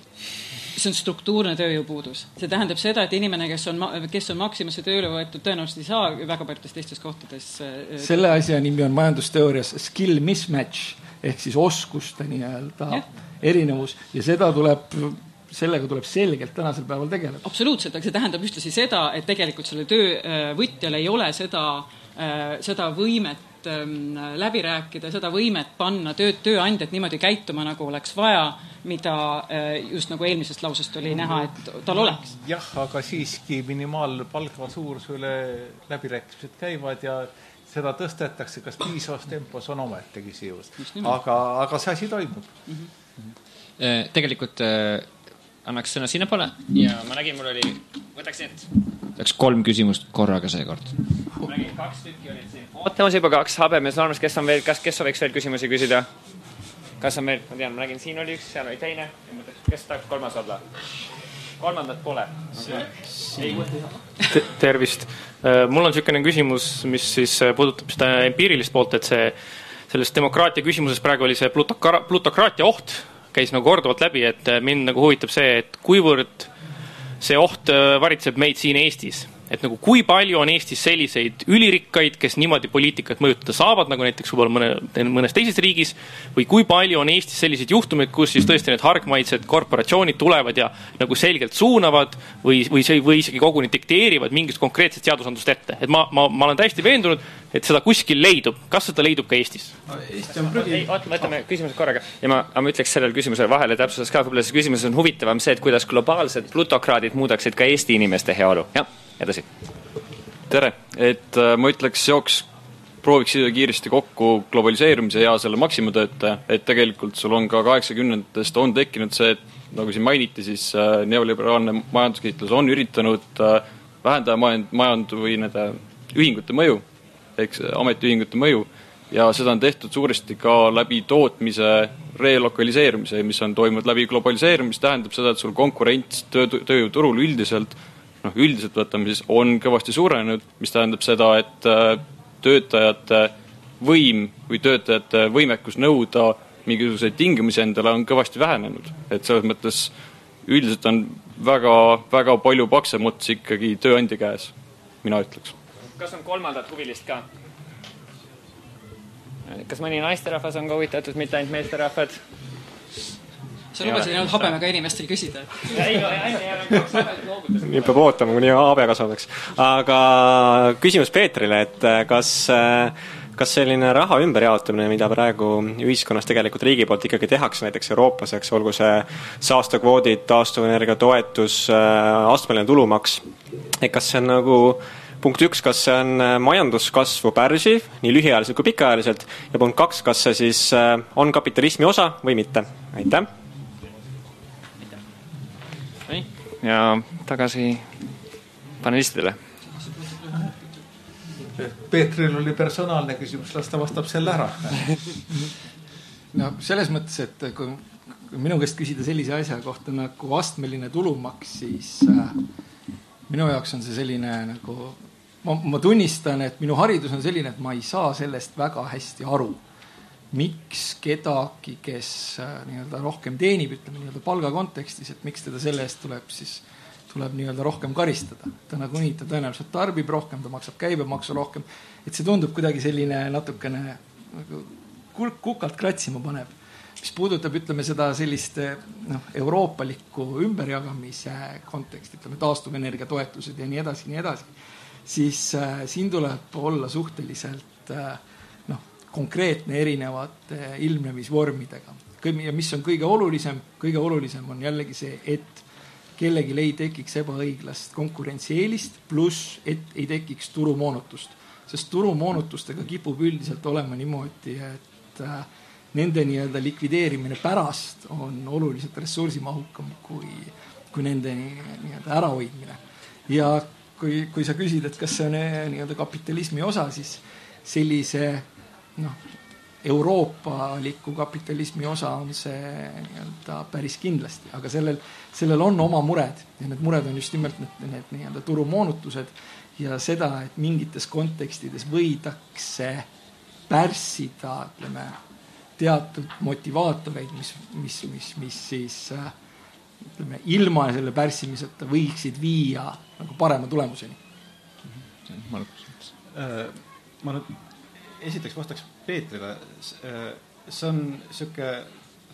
See on struktuurne tööjõupuudus. See tähendab seda, et inimene, kes on Maximasse tööle võetud, tõenäoliselt ei saa väga paljudes teistes kohtades. Selle asja nimi on majandusteoorias skill mismatch ehk siis oskuste nii-öelda erinevus ja sellega tuleb selgelt tänasel päeval tegeleda. Absoluutselt, aga see tähendab ühtlasi seda, et tegelikult selle töövõtjal ei ole seda võimet läbi rääkida, seda võimet panna tööandjat niimoodi käituma, nagu oleks vaja, mida just nagu eelmisest lausest oli näha, et tal oleks. Jah, aga siiski minimaalpalga suurusele läbirääkimised käivad ja seda tõstetakse, kas piisavas tempos on ometegi siivus. Aga see asi toimub. Tegelikult annaks sõna sinna poole ja ma nägin, mul oli, võtaks 3 küsimust korraga seekord. Ma nägin 2 tükki olid siin. Ootamas juba 2 habemes normas, kes sooviks veel küsimusi küsida? Kas on veel, ma tean, ma nägin, siin oli 1, seal oli teine. Kes tahaks 3. olla? 3. pole. Tervist. Mul on selline küsimus, mis siis puudutab seda empiirilist poolt, et selles demokraatia küsimuses praegu oli see plutokraatia oht, käis nagu korduvalt läbi, et mind nagu huvitab see, et kuivõrd see oht varitseb meid siin Eestis. et nagu kui palju on Eestis selliseid ülirikkaid, kes niimoodi poliitikat mõjutada saavad, nagu näiteks võib-olla mõnes teises riigis, või kui palju on Eestis selliseid juhtumeid, kus siis tõesti need hargmaised korporatsioonid tulevad ja nagu selgelt suunavad või isegi koguni dikteerivad mingist konkreetset seadusandlust ette. Et ma olen täiesti veendunud, et seda kuskil leidub. Kas seda leidub ka Eestis? Eesti on prügi. Võtame küsimused korraga. Ja ma ütleks sellele küsimusele vahele täpsustas ka, võib-olla see küsimus on huvitavam see, et kuidas globaalsed plutokraadid muudaksid ka Eesti inimeste heaolu. Ja, edasi. Tere. Et ma ütleks prooviks siia kiiresti kokku globaliseerumise ja selle maksimumtöötaja, et tegelikult sul on ka 80-ndest on tekkinud see, et nagu siin mainiti, siis neoliberaalne majanduskiitlus on üritanud vähendada või nende ühingute mõju, eks ametiühingute mõju, ja seda on tehtud suuresti ka läbi tootmise relokaliseerumise, mis on toimunud läbi globaliseerumise, tähendab seda, et sul konkurents tööjõuturul üldiselt võtame siis, on kõvasti suurenenud, mis tähendab seda, et töötajate võim või töötajate võimekus nõuda mingisuguseid tingimusi endale on kõvasti vähenenud. Et selles mõttes üldiselt on väga, väga palju paksem ots ikkagi tööandja käes, mina ütleks. Kas on kolmandat huvilist ka? Kas mõni naisterahvas on ka huvitatud, mitte ainult meesterahvad? Sa lubasid ainult habemega inimestel küsida. Nii peab ootama, kuni habe kasvabaks. Aga küsimus Peetrile, et kas selline raha ümberjaotamine, mida praegu ühiskonnas tegelikult riigi poolt ikkagi tehakse, näiteks Euroopas, eks, olgu see saastakvoodid, taastuvenergia toetus, astmeline tulumaks, et kas see on nagu punkt 1, kas see on majanduskasvu pärsiv, nii lühiajaliselt kui pikaajaliselt, ja punkt 2, kas see siis on kapitalismi osa või mitte? Aitäh! Ja tagasi panelistidele. Peetril oli personaalne küsimus, las ta vastab selle ära. No selles mõttes, et kui minu käest küsida sellise asja kohta nagu astmeline tulumaks, siis minu jaoks on see selline nagu, ma tunnistan, et minu haridus on selline, et ma ei saa sellest väga hästi aru. Miks kedagi, kes nii-öelda rohkem teenib, ütleme nii-öelda palga kontekstis, et miks teda selle eest tuleb nii-öelda rohkem karistada. Ta nagu nii, ta tõenäoliselt tarbib rohkem, ta maksab käibemaksu rohkem. Et see tundub kuidagi selline natukene nagu kukalt kratsima paneb. Mis puudutab, ütleme seda sellist euroopalikku ümberjagamise konteksti, ütleme taastuvenergia toetused ja nii edasi, siis siin tuleb olla suhteliselt konkreetne erinevate ilmnemisvormidega. Ja mis on kõige olulisem on jällegi see, et kellegi ei tekiks ebaõiglast konkurentsieelist, pluss et ei tekiks turumoonutust. Sest turumoonutustega kipub üldiselt olema niimoodi, et nende nii-öelda likvideerimine pärast on oluliselt ressursimahukam kui nende nii-öelda ärahoidmine. Ja kui sa küsid, et kas see on nii-öelda kapitalismi osa, siis sellise euroopaliku kapitalismi osa on see nii-öelda päris kindlasti, aga sellel on oma mured ja need mured on just nimelt need nii-öelda turumoonutused ja seda, et mingites kontekstides võidakse pärssida, ütleme, teatud motivaatoreid, mis siis ütleme, ilma selle pärssimiseta võiksid viia nagu parema tulemuseni. Ma nüüd esiteks vastaks Peetrile. See on siuke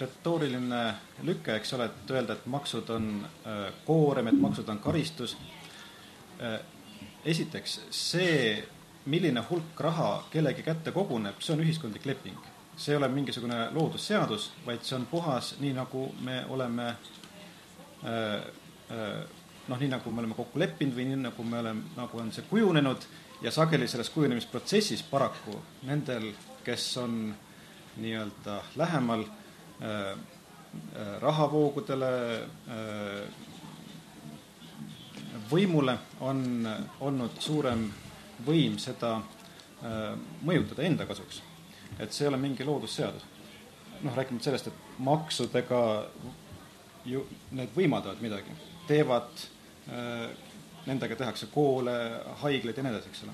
retooriline lükke, eks ole, et öelda, et maksud on koorem, et maksud on karistus. Esiteks, see, milline hulk raha kellegi kätte koguneb, see on ühiskondlik leping. See ei ole mingisugune loodusseadus, vaid see on puhas, nii nagu me oleme nii nagu me oleme kokku leppinud või nii nagu on see kujunenud. Ja sageli selles kujunemisprotsessis paraku nendel, kes on nii-öelda lähemal rahavoogudele, võimule, on olnud suurem võim seda mõjutada enda kasuks. Et see ei ole mingi loodusseadus. Rääkimata sellest, et maksudega ju need võimaldavad midagi. Teevad nendega tehakse koole, haigleid ja nii edasi, eks ole.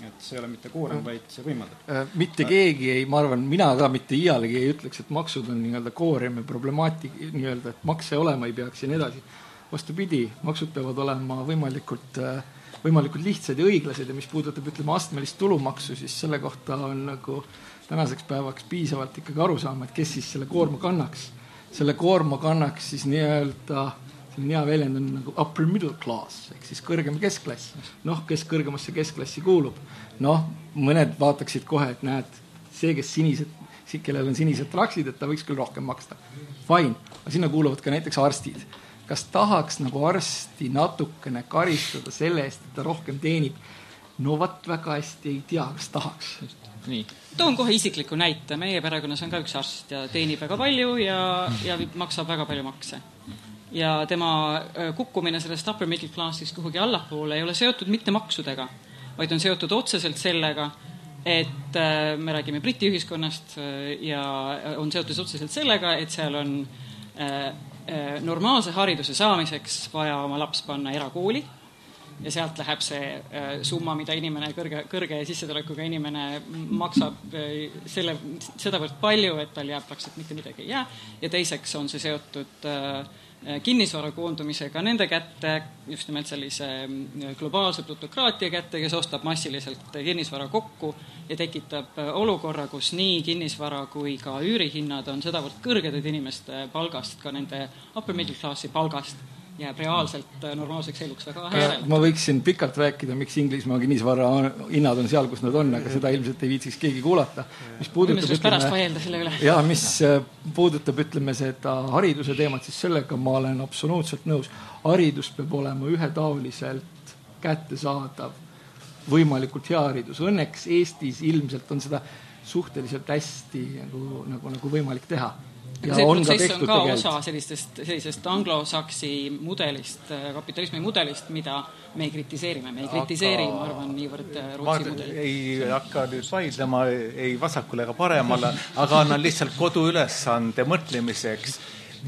Et see ei ole mitte koorem, vaid see võimaldab. Mitte keegi ei, ma arvan, mina ka mitte iialegi ei ütleks, et maksud on nii-öelda koorem ja problemaatik, nii-öelda, et makse olema ei peaks ja nii edasi. Vastupidi, maksud peavad olema võimalikult võimalikult lihtsad ja õiglased ja mis puudutab, ütleme, astmelist tulumaksu, siis selle kohta on nagu tänaseks päevaks piisavalt ikkagi aru saama, et kes siis selle koorma kannaks. Selle koorma kannaks siis nii-öelda, selline hea väljend on nagu upper middle class, ehk siis kõrgem keskklass. Noh, kes kõrgemasse keskklassi kuulub. Noh, mõned vaataksid kohe, et näed, see, kes sinised, kellel on sinised traksid, et ta võiks küll rohkem maksta. Fine, aga sinna kuuluvad ka näiteks arstid. Kas tahaks nagu arsti natukene karistada selle eest, et ta rohkem teenib? No vat väga hästi ei tea, kas tahaks. Nii. Toon kohe isikliku näite. Meie perekonnas on ka üks arst ja teenib väga palju ja maksab väga palju makse. Ja tema kukkumine sellest upper middle classist kuhugi allapoole ei ole seotud mitte maksudega, vaid on seotud otseselt sellega, et me räägime Briti ühiskonnast ja on seotud otseselt sellega, et seal on normaalse hariduse saamiseks vaja oma laps panna erakooli ja sealt läheb see summa, mida inimene, kõrge sissetulekuga inimene maksab sedavõrd palju, et tal jääb praktiliselt mitte midagi ei jää. Ja teiseks on see seotud kinnisvara koondumisega nende kätte, just nimelt sellise globaalse plutokraatia kätte, kes ostab massiliselt kinnisvara kokku ja tekitab olukorra, kus nii kinnisvara kui ka üürihinnad on sedavõrd kõrged, et inimeste palgast, ka nende upper middle classi palgast jääb reaalselt normaalseks eluks väga järele. Ma võiksin pikalt rääkida, miks Inglismaa kinnisvara hinnad on seal, kus nad on, aga seda ilmselt ei viitsiks keegi kuulata. Mis puudutab, ütleme, seda hariduse teemat, siis sellega ma olen absoluutselt nõus. Haridus peab olema ühetaoliselt kättesaadav, võimalikult hea haridus. Õnneks Eestis ilmselt on seda suhteliselt hästi nagu võimalik teha. Aga see protsess on ka osa sellisest anglosaksi mudelist, kapitalismi mudelist, mida me ei kritiseerime. Me ei kritiseeri, ma arvan, niivõrd Rootsi mudeli. Ei hakka nüüd vaidlema ei vasakule ega paremale, aga annan lihtsalt koduülesande mõtlemiseks.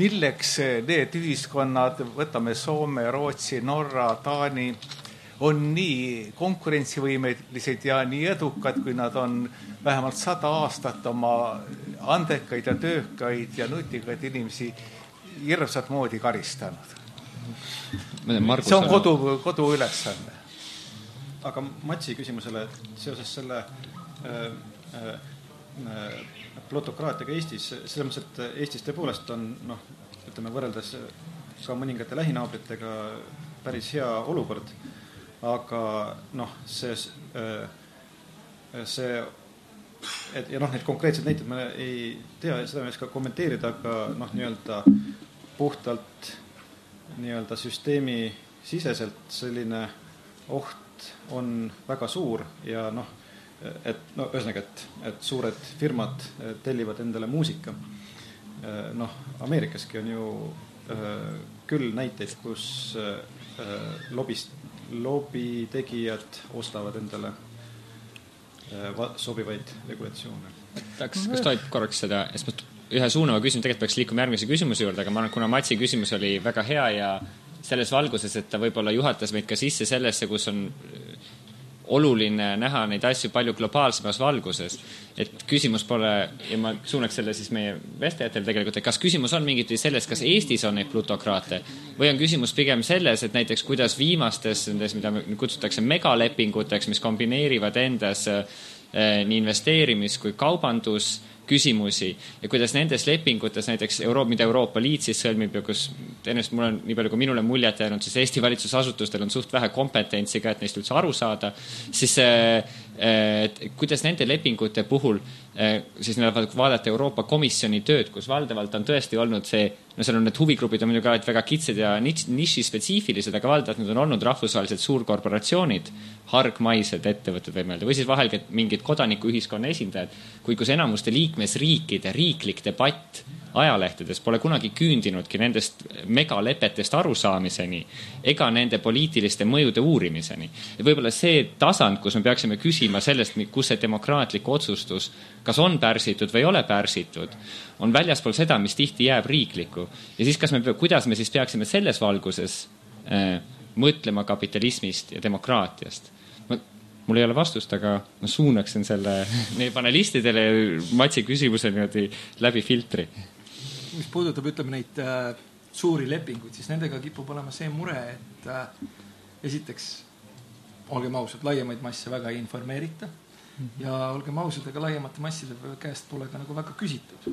Milleks need ühiskonnad, võtame Soome, Rootsi, Norra, Taani, on nii konkurentsivõimelised ja nii edukad, kui nad on vähemalt 100 aastat oma andekaid ja töökaid ja nutikaid inimesi hirmsat moodi karistanud. See on kodu ülesanne. Aga Matsi küsimusele seoses selle plutokraatiaga Eestis, selles mõttes, et Eestis tõepoolest on, ütleme, võrreldes ka mõningate lähinaabritega päris hea olukord. Aga see ja need konkreetsed näited ma ei tea, seda ma ei oska kommenteerida, aga nii-öelda puhtalt nii-öelda süsteemi siseselt selline oht on väga suur ja ühesõnaga, et suured firmad tellivad endale muusika. Ameerikaski on ju küll näiteid, kus lobitegijad ostavad endale sobivaid regulatsioone. Kas tohib korraks seda, ühe suunava küsimus, tegelikult peaks liikuma järgmise küsimuse juurde, aga ma arvan, kuna Matsi küsimus oli väga hea ja selles valguses, et ta võib-olla juhatas meid ka sisse sellesse, kus on oluline näha neid asju palju globaalsemas valguses. Et küsimus pole, ja ma suunaks selle siis meie vestlejatel tegelikult, et kas küsimus on mingit selles, kas Eestis on neid plutokraate või on küsimus pigem selles, et näiteks kuidas viimastes, mida kutsutakse megalepinguteks, mis kombineerivad endas nii investeerimis kui kaubandus küsimusi ja kuidas nendes lepingutes näiteks mida Euroopa Liit siis sõlmib ja kus ennast mul on nii palju kui minule muljet jäänud, siis Eesti valitsusasutustel on suht vähe kompetentsi ka, et neist üldse aru saada, siis kuidas nende lepingute puhul siis vaadata Euroopa Komisjoni tööd, kus valdavalt on tõesti olnud see, seal on need huvigrupid on muidugi väga kitsed ja niši-spetsiifilised, aga valdavalt need on olnud rahvusvahelised suurkorporatsioonid, hargmaised ettevõtted või mõelda, või siis vahel mingid kodanikuühiskonna esindajad, kus enamuste liikmesriikide riiklik debatt ajalehtedes pole kunagi küündinudki nendest megalepetest arusaamiseni ega nende poliitiliste mõjude uurimiseni. Ja võib-olla see tasand, kus me peaksime küsima sellest, kus see demokraatlik otsustus kas on pärsitud või ei ole pärsitud, on väljaspool seda, mis tihti jääb riikliku. Ja siis kuidas me siis peaksime selles valguses mõtlema kapitalismist ja demokraatiast. Mul ei ole vastust, aga ma suunaksin selle meie panelistidele Matsi küsimuse niimoodi läbi filtri. Mis puudutab, ütleme, neid suuri lepinguid, siis nendega kipub olema see mure, et esiteks olgem ausad, laiemaid masse väga ei informeerita ja olgem ausad, aga laiemate masside käest pole ka nagu väga küsitud.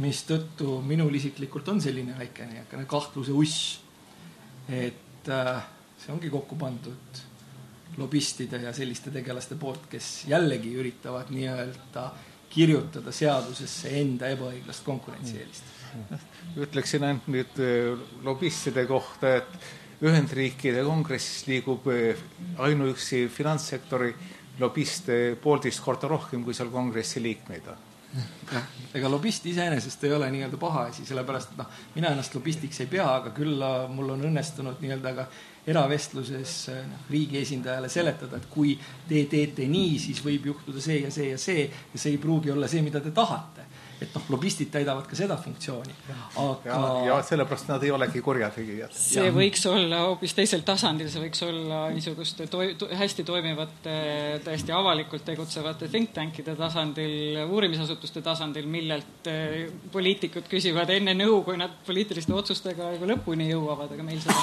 Mis tõttu minul isiklikult on selline väikene kahtluse uss, et see ongi kokku pandud lobistide ja selliste tegelaste poolt, kes jällegi üritavad nii-öelda kirjutada seadusesse enda ebaõiglast konkurentsieelist. Ütleksin ainult nüüd lobistide kohta, et Ühendriikide kongressis liigub ainuüksi finantssektori lobiste 1,5 korda rohkem, kui seal kongressi liikmeid on. Ega lobist iseenesest ei ole nii-öelda paha asi, sellepärast, et mina ennast lobistiks ei pea, aga küll mul on õnnestunud nii-öelda ka eravestluses riigi esindajale seletada, et kui te teete nii, siis võib juhtuda see ja see ja see ja see ei pruugi olla see, mida te tahate. Et lobistid täidavad ka seda funktsiooni. Aga... Ja sellepärast nad ei olegi kurjategijad. See võiks olla hoopis teisel tasandil, see võiks olla niisuguste hästi toimivate, täiesti avalikult tegutsevate think tankide tasandil, uurimisasutuste tasandil, millelt poliitikud küsivad enne nõu, kui nad poliitiliste otsustega lõpuni jõuavad, aga meil seda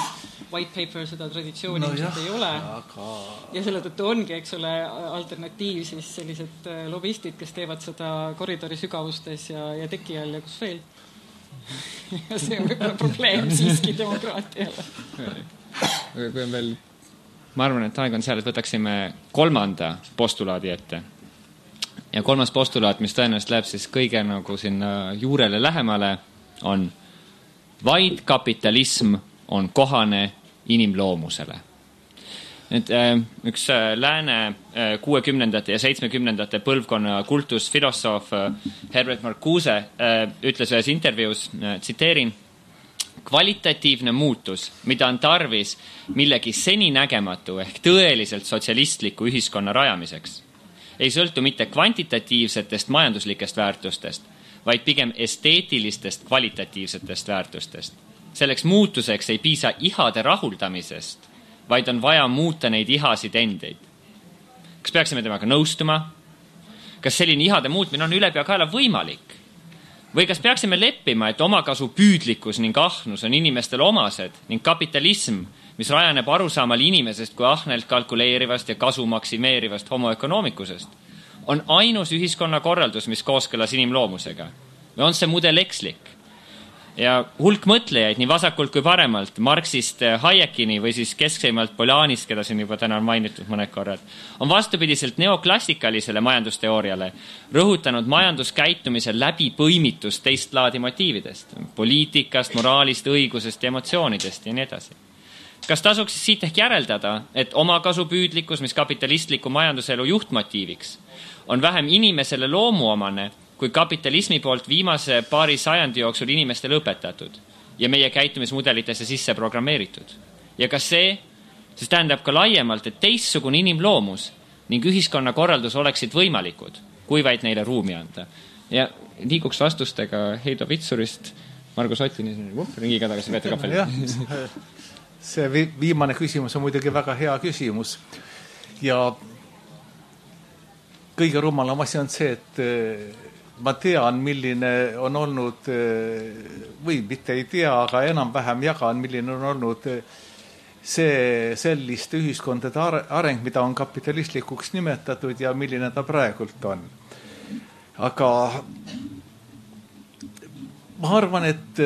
white paper, seda traditsiooni ei ole. Ja selle tõttu ongi, eks ole, alternatiiv siis sellised lobistid, kes teevad seda koridori sügavustes ja teki all ja kus veel. Ja see on võib-olla probleem siiski demokraatiale. Kui on veel, ma arvan, et aeg on seal, et võtaksime 3. postulaadi ette. Ja 3. postulaat, mis tõenäoliselt läheb siis kõige nagu sinna juurele lähemale, on vaid kapitalism on kohane inimloomusele. Nüüd, üks lääne 60. ja 70. põlvkonna kultusfilosoof Herbert Marcuse ütles ühes intervjuus, tsiteerin, kvalitatiivne muutus, mida on tarvis millegi seninägematu ehk tõeliselt sotsialistliku ühiskonna rajamiseks, ei sõltu mitte kvantitatiivsetest majanduslikest väärtustest, vaid pigem esteetilistest kvalitatiivsetest väärtustest. Selleks muutuseks ei piisa ihade rahuldamisest, vaid on vaja muuta neid ihasid endeid. Kas peaksime temaga nõustuma? Kas selline ihade muutmine on ülepeakaela võimalik? Või kas peaksime leppima, et omakasu püüdlikkus ning ahnus on inimestele omased ning kapitalism, mis rajaneb arusaamal inimesest kui ahnelt kalkuleerivast ja kasu maksimeerivast homoökonoomikusest, on ainus ühiskonna korraldus, mis kooskõlas inimloomusega? Või on see mudel ekslik? Ja hulk mõtlejaid nii vasakult kui paremalt, Marxist Hayekini või siis keskseimalt Polanist, keda siin juba täna on mainitud mõned korrad, on vastupidiselt neoklassikalisele majandusteooriale rõhutanud majanduskäitumise läbipõimitust teist laadi motiividest, poliitikast, moraalist, õigusest ja emotsioonidest ja nii edasi. Kas tasuks siit ehk järeldada, et omakasupüüdlikkus, mis kapitalistliku majanduselu juhtmotiiviks, on vähem inimesele loomuomane, kui kapitalismi poolt viimase paari sajandi jooksul inimestele õpetatud ja meie käitumismudelitesse sisse programmeeritud. Ja kas see tähendab ka laiemalt, et teistsugune inimloomus ning ühiskonna korraldus oleksid võimalikud, kui vaid neile ruumi anda. Ja liiguks vastustega Heido Vitsurist, Margus Ottini ringiga tagasi Peeter Kappel. See viimane küsimus on muidugi väga hea küsimus. Ja kõige rumalam asi on see, et ma tean, milline on olnud, või mitte ei tea, aga enam-vähem jagan, milline on olnud see selliste ühiskondade areng, mida on kapitalistlikuks nimetatud ja milline ta praegult on. Aga ma arvan, et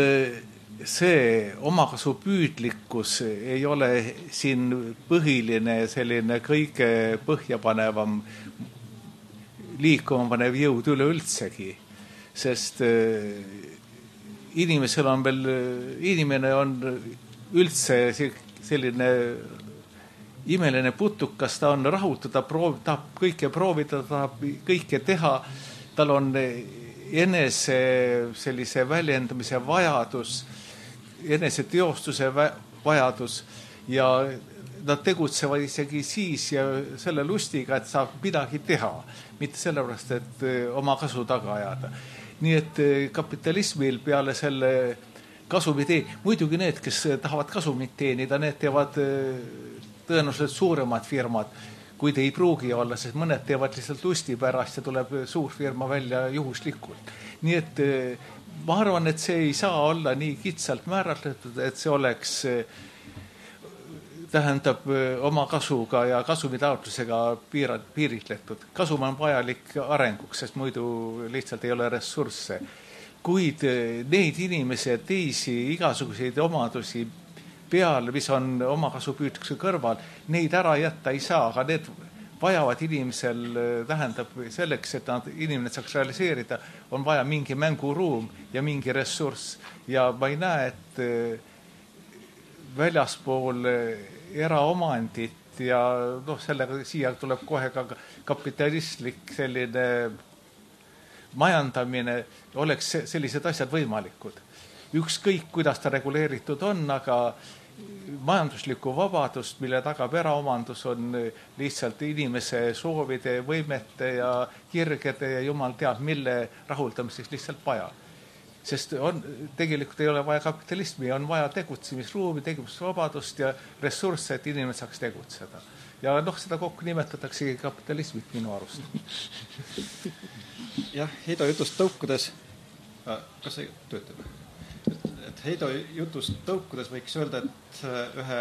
see omakasupüüdlikkus ei ole siin põhiline selline kõige põhjapanevam liikuma panev jõud üleüldsegi, sest inimesel on veel, inimene on üldse selline imeline putukas, ta on rahutu, ta tahab kõike proovida, ta tahab kõike teha, tal on enese sellise väljendamise vajadus, enese teostuse vajadus ja nad tegutsevad isegi siis ja selle lustiga, et saab midagi teha, mitte sellepärast, et oma kasu taga ajada. Nii et kapitalismil peale selle kasumit muidugi need, kes tahavad kasumit teenida, need teevad tõenäoliselt suuremad firmad, kuid ei pruugi olla, sest mõned teevad lihtsalt lusti pärast ja tuleb suur firma välja juhuslikult. Nii et ma arvan, et see ei saa olla nii kitsalt määratletud, et see oleks tähendab oma kasuga ja kasumitaotlusega piiritletud. Kasum on vajalik arenguks, sest muidu lihtsalt ei ole ressursse. Kuid neid inimesi ja teisi igasuguseid omadusi peal, mis on omakasupüüdluse kõrval, neid ära jätta ei saa, aga need vajavad inimesel, tähendab selleks, et inimene saaks realiseerida, on vaja mingi mänguruum ja mingi ressurss. Ja ma ei näe, et väljaspool eraomandit ja sellega siia tuleb kohe ka kapitalistlik selline majandamine, oleks sellised asjad võimalikud. Ükskõik, kuidas ta reguleeritud on, aga majanduslikku vabadust, mille tagab eraomandus, on lihtsalt inimese soovide, võimete ja kirgede ja jumal teab, mille rahuldamiseks lihtsalt vaja. Sest tegelikult ei ole vaja kapitalismi, on vaja tegutsemisruumi, tegutsemisvabadust ja ressursse, et inimene saaks tegutseda. Ja seda kokku nimetatakse kapitalismit minu arust. Jah, Heido jutust tõukudes, kas see töötab? Et Heido jutust tõukudes võiks öelda, et ühe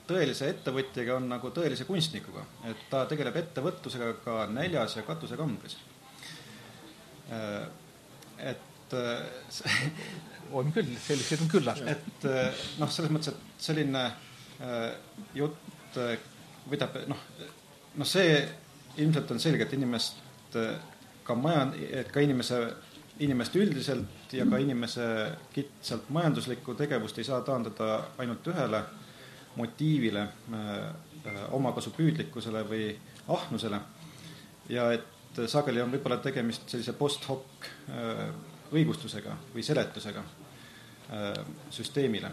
tõelise ettevõtjaga on nagu tõelise kunstnikuga, et ta tegeleb ettevõtlusega ka näljas ja katusekambris. Et on küll, sellised on küllalt. Et selles mõttes, et selline jutt võidab, see ilmselt on selge, et inimest ka inimest üldiselt ja ka inimese kitsalt majanduslikku tegevust ei saa taandada ainult ühele motiivile, omakasupüüdlikkusele või ahnusele. Ja et sageli on võib-olla tegemist sellise post-hoc õigustusega või seletusega süsteemile.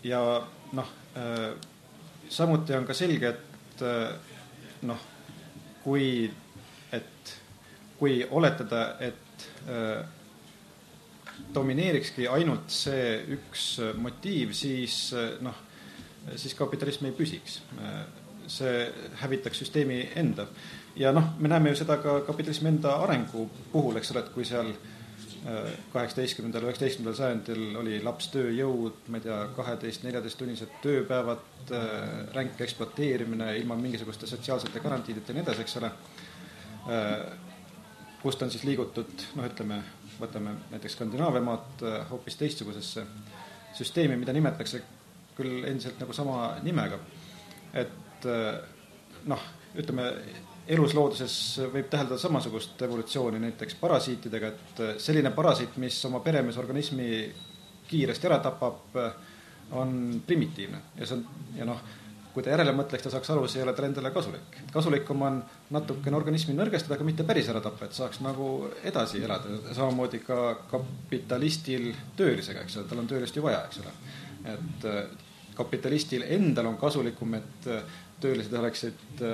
Ja samuti on ka selge, et kui oletada, et domineerikski ainult see üks motiiv, siis kapitalism ei püsiks. See hävitaks süsteemi enda. Ja me näeme ju seda ka kapitalismi enda arengu puhul, eks ole, et kui seal 18. 19. sajandil oli lapstööjõud, 12-14 tunnised tööpäevad, ränk ekspluateerimine ilma mingisuguste sotsiaalsete garantiideta ja nii edasi, eks ole, kust on siis liigutud, võtame näiteks Skandinaavia maad hoopis teistsugusesse süsteemi, mida nimetatakse küll endiselt nagu sama nimega. Et eluslooduses võib täheldada samasugust evolutsiooni näiteks parasiitidega, et selline parasiit, mis oma peremeesorganismi kiiresti ära tapab, on primitiivne. Kui ta järele mõtleks, ta saaks aru, see ei ole tal endale kasulik. Kasulikum on natukene organismi nõrgestada, aga mitte päris ära tappa, et saaks nagu edasi elada. Samamoodi ka kapitalistil töölisega, eks ole, tal on töölist ju vaja, eks ole. Et kapitalistil endal on kasulikum, et töölised oleksid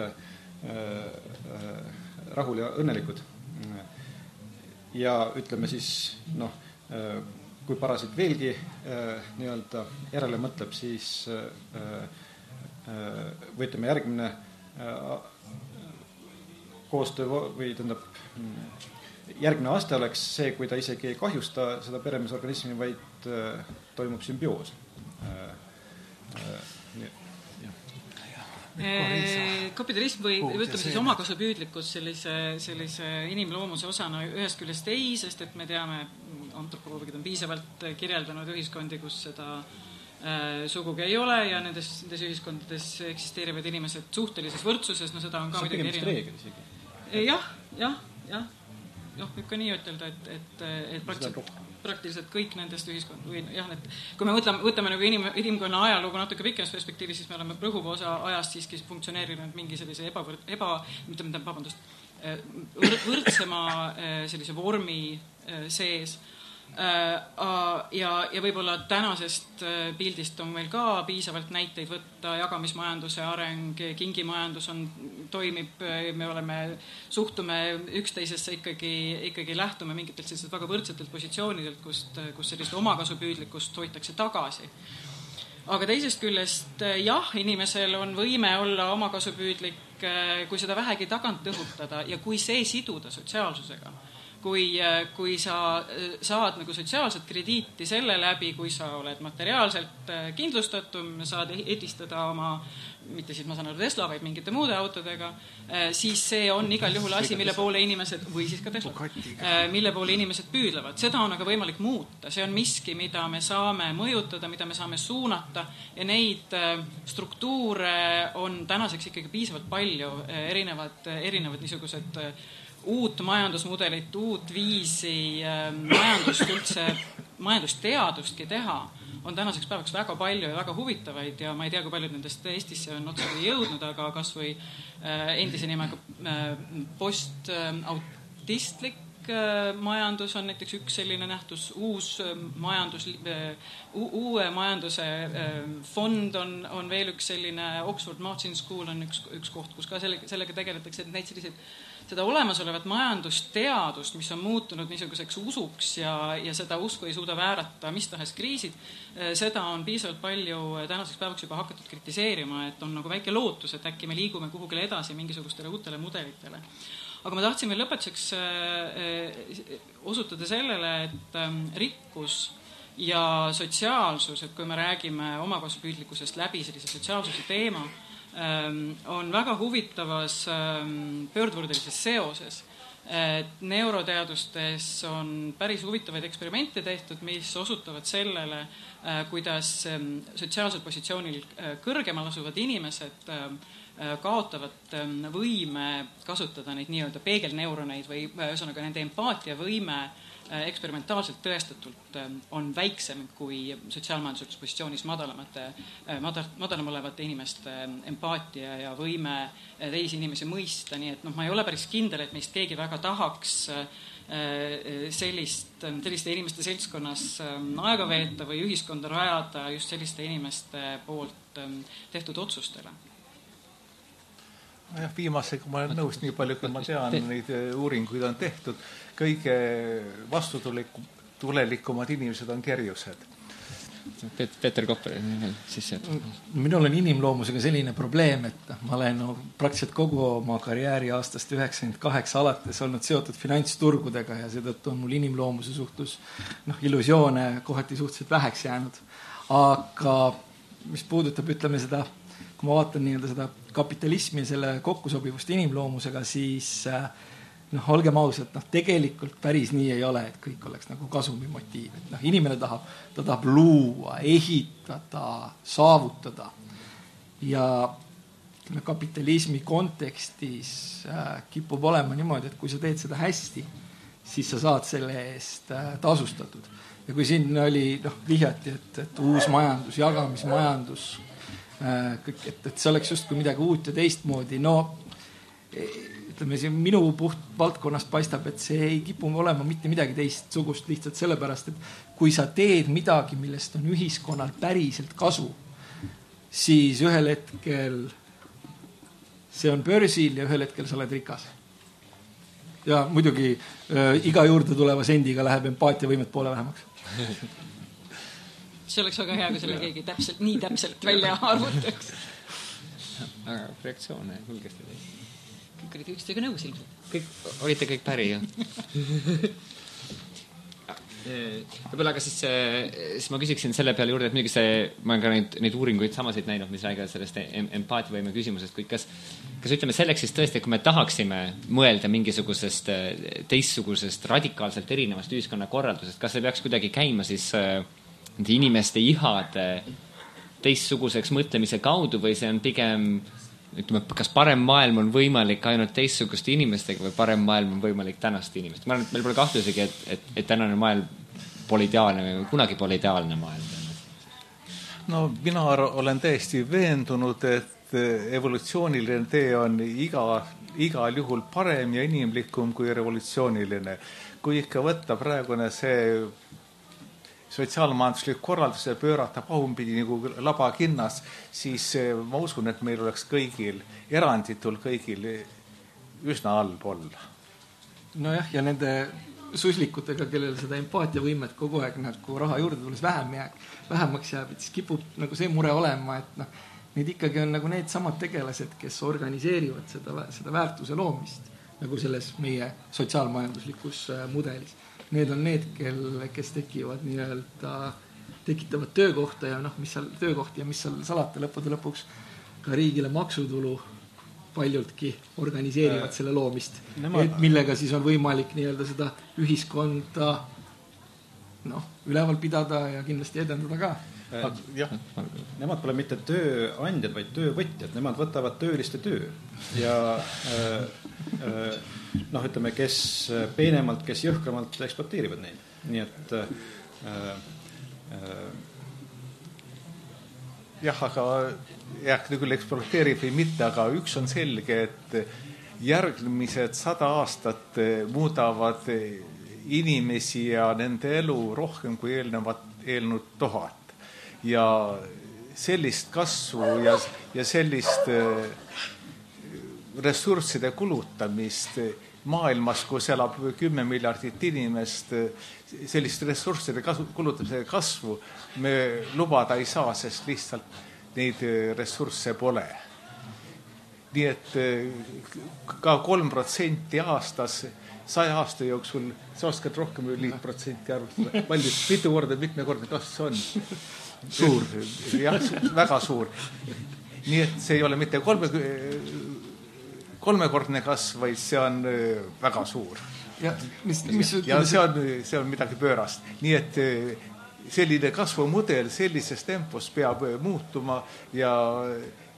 rahul ja õnnelikud. Ja ütleme siis, kui parasiit veelgi järele mõtleb, siis või ütleme järgmine koostöö või järgmine aste oleks see, kui ta isegi ei kahjusta seda peremeesorganismi, vaid toimub sümbioos. Kapitalism või ütleme siis omakasupüüdlikkus sellise inimloomuse osana ühest küljest ei, sest et me teame, antropoloogid on piisavalt kirjeldanud ühiskondi, kus seda sugugi ei ole ja nendes ühiskondades eksisteerivad inimesed suhtelises võrdsuses, seda on ka midagi erinev. Jah, võib ka nii ütelda, et praktiliselt kõik nendest ühiskond või kui me võtame nagu inimkonna ajalugu natuke pikemas perspektiivis, siis me oleme rõhuva osa ajast siiski funktsioneerinud mingi sellise võrdsema sellise vormi sees. Ja võib-olla tänasest pildist on meil ka piisavalt näiteid võtta, jagamismajanduse areng, kingimajandus toimib, me suhtume üksteisesse ikkagi lähtume mingitelt sellised väga võrdsetelt positsioonidelt, kus sellist omakasupüüdlikkust hoitakse tagasi. Aga teisest küljest jah, inimesel on võime olla omakasupüüdlik, kui seda vähegi tagant õhutada ja kui see siduda sotsiaalsusega. kui sa saad nagu sotsiaalset krediiti selle läbi, kui sa oled materiaalselt kindlustatum, saad edistada oma, mitte siis ma saan aru Tesla, vaid mingite muude autodega, siis see on igal juhul asi, mille poole inimesed, või siis ka Tesla, mille poole inimesed püüdlevad. Seda on aga võimalik muuta. See on miski, mida me saame mõjutada, mida me saame suunata ja neid struktuure on tänaseks ikkagi piisavalt palju, erinevad niisugused uut majandusmudelit, uut viisi majandust üldse, majandusteadustki teha on tänaseks päevaks väga palju ja väga huvitavaid ja ma ei tea, kui paljud nendest Eestisse on otseselt jõudnud, aga kas või endise nimega postautistlik majandus on näiteks üks selline nähtus, uue majanduse fond on veel üks selline, Oxford Martin School on üks koht, kus ka sellega tegeletakse, et neid selliseid seda olemasolevat majandusteadust, mis on muutunud niisuguseks usuks ja seda usku ei suuda väärata mis tahes kriisid, seda on piisavalt palju tänaseks päevaks juba hakatud kritiseerima, et on nagu väike lootus, et äkki me liigume kuhugile edasi mingisugustele uutele mudelitele. Aga ma tahtsin veel lõpetuseks osutada sellele, et rikkus ja sotsiaalsus, et kui me räägime omakasupüüdlikkusest läbi sellise sotsiaalsuse teema, on väga huvitavas pöördvurdelises seoses. Neuroteadustes on päris huvitavaid eksperimente tehtud, mis osutavad sellele, kuidas sotsiaalsel positsioonil kõrgemal asuvad inimesed kaotavad võime kasutada neid nii-öelda peegelneuroneid või ühesõnaga nende empaatiavõime eksperimentaalselt tõestatult on väiksem kui sotsiaalmajanduslikus positsioonis madalam olevate inimeste empaatia ja võime teisi inimesi mõista, nii et ma ei ole päris kindel, et meist keegi väga tahaks selliste inimeste seltskonnas aega veeta või ühiskonda rajada just selliste inimeste poolt tehtud otsustele. Jah, viimasega ma olen nõus, nii palju, kui ma tean, neid uuringuid on tehtud. Kõige vastutulelikumad inimesed on kerjused. Peeter Kopper sisse. Minul on inimloomusega selline probleem, et ma olen praktiliselt kogu oma karjääri aastast 98 alates olnud seotud finantsturgudega ja seetõttu on mul inimloomuse suhtus illusioone kohati suhteliselt väheks jäänud. Aga mis puudutab, ütleme seda, kui ma vaatan nii-öelda seda kapitalismi ja selle kokkusobivust inimloomusega, siis olgem ausad, tegelikult päris nii ei ole, et kõik oleks nagu kasumi motiiv. Et inimene tahab luua, ehitada, saavutada. Ja kapitalismi kontekstis kipub olema niimoodi, et kui sa teed seda hästi, siis sa saad selle eest tasustatud. Ja kui siin oli vihjati, et uus majandus, jagamismajandus, et see oleks just kui midagi uut ja teistmoodi, ütleme, siin minu puht valdkonnast paistab, et see ei kipu olema mitte midagi teistsugust lihtsalt sellepärast, et kui sa teed midagi, millest on ühiskonnal päriselt kasu, siis ühel hetkel see on börsil ja ühel hetkel sa oled rikas. Ja muidugi iga juurde tuleva sendiga läheb empaatiavõimet poole vähemaks. See oleks väga hea, kui selle keegi nii täpselt välja arvutaks. Aga reaktsioone hulgesti teid. Kõik olid ükstega nõus ilmselt. Olite kõik päri, jah? Võib-olla aga siis ma küsiksin selle peale juurde, et muidugi ma olen ka neid uuringuid samasid näinud, mis räägivad sellest empaatiavõime küsimusest, kuid kas ütleme selleks siis tõesti, kui me tahaksime mõelda mingisugusest teistsugusest radikaalselt erinevast ühiskonnakorraldusest, kas see peaks kuidagi käima siis nende inimeste ihade teistsuguseks mõtlemise kaudu või see on pigem, ütleme, kas parem maailm on võimalik ainult teistsuguste inimestega või parem maailm on võimalik tänaste inimestega? Ma arvan, et meil pole kahtlusegi, et tänane maailm pole ideaalne või kunagi pole ideaalne maailm. No mina olen täiesti veendunud, et evolutsiooniline tee on igal juhul parem ja inimlikum kui revolutsiooniline. Kui ikka võtta praegune see sotsiaalmajanduslik korraldus ja pöörata pahumpidi nagu labakinnas, siis ma usun, et meil oleks kõigil, eranditul kõigil üsna halb olla. Nojah, ja nende suslikutega, kellel seda empaatiavõimet kogu aeg nagu raha juurde tulles vähemaks jääb, et siis kipub nagu see mure olema, et need ikkagi on nagu need samad tegelased, kes organiseerivad seda väärtuse loomist. nagu selles meie sotsiaalmajanduslikus mudelis. Need on need, kes tekivad tekitavad töökohta ja mis seal töökohti ja mis seal salata lõpuks ka riigile maksutulu paljultki organiseerivad selle loomist, millega siis on võimalik seda ühiskonda üleval pidada ja kindlasti edendada ka. Jah, nemad pole mitte tööandjad, vaid töövõtjad, nemad võtavad tööliste töö ja ütleme, kes peenemalt, kes jõhkramalt ekspluateerivad neid. Nii et jah, aga küll ekspluateerib või mitte, aga üks on selge, et järgmised 100 aastat muudavad inimesi ja nende elu rohkem kui eelnud 1000. Ja sellist kasvu ja sellist ressursside kulutamist maailmas, kus elab 10 miljardit inimest, sellist ressursside kulutamise kasvu me lubada ei saa, sest lihtsalt neid ressursse pole. Nii et ka 3% aastas 100 aasta jooksul, sa oskad rohkem või 5% arvutada. Mitmekordne kasv on suur, jah, väga suur. Nii et see ei ole mitte kolmekordne kasv, vaid see on väga suur. Ja see on midagi pöörast. Nii et selline kasvumudel sellises tempos peab muutuma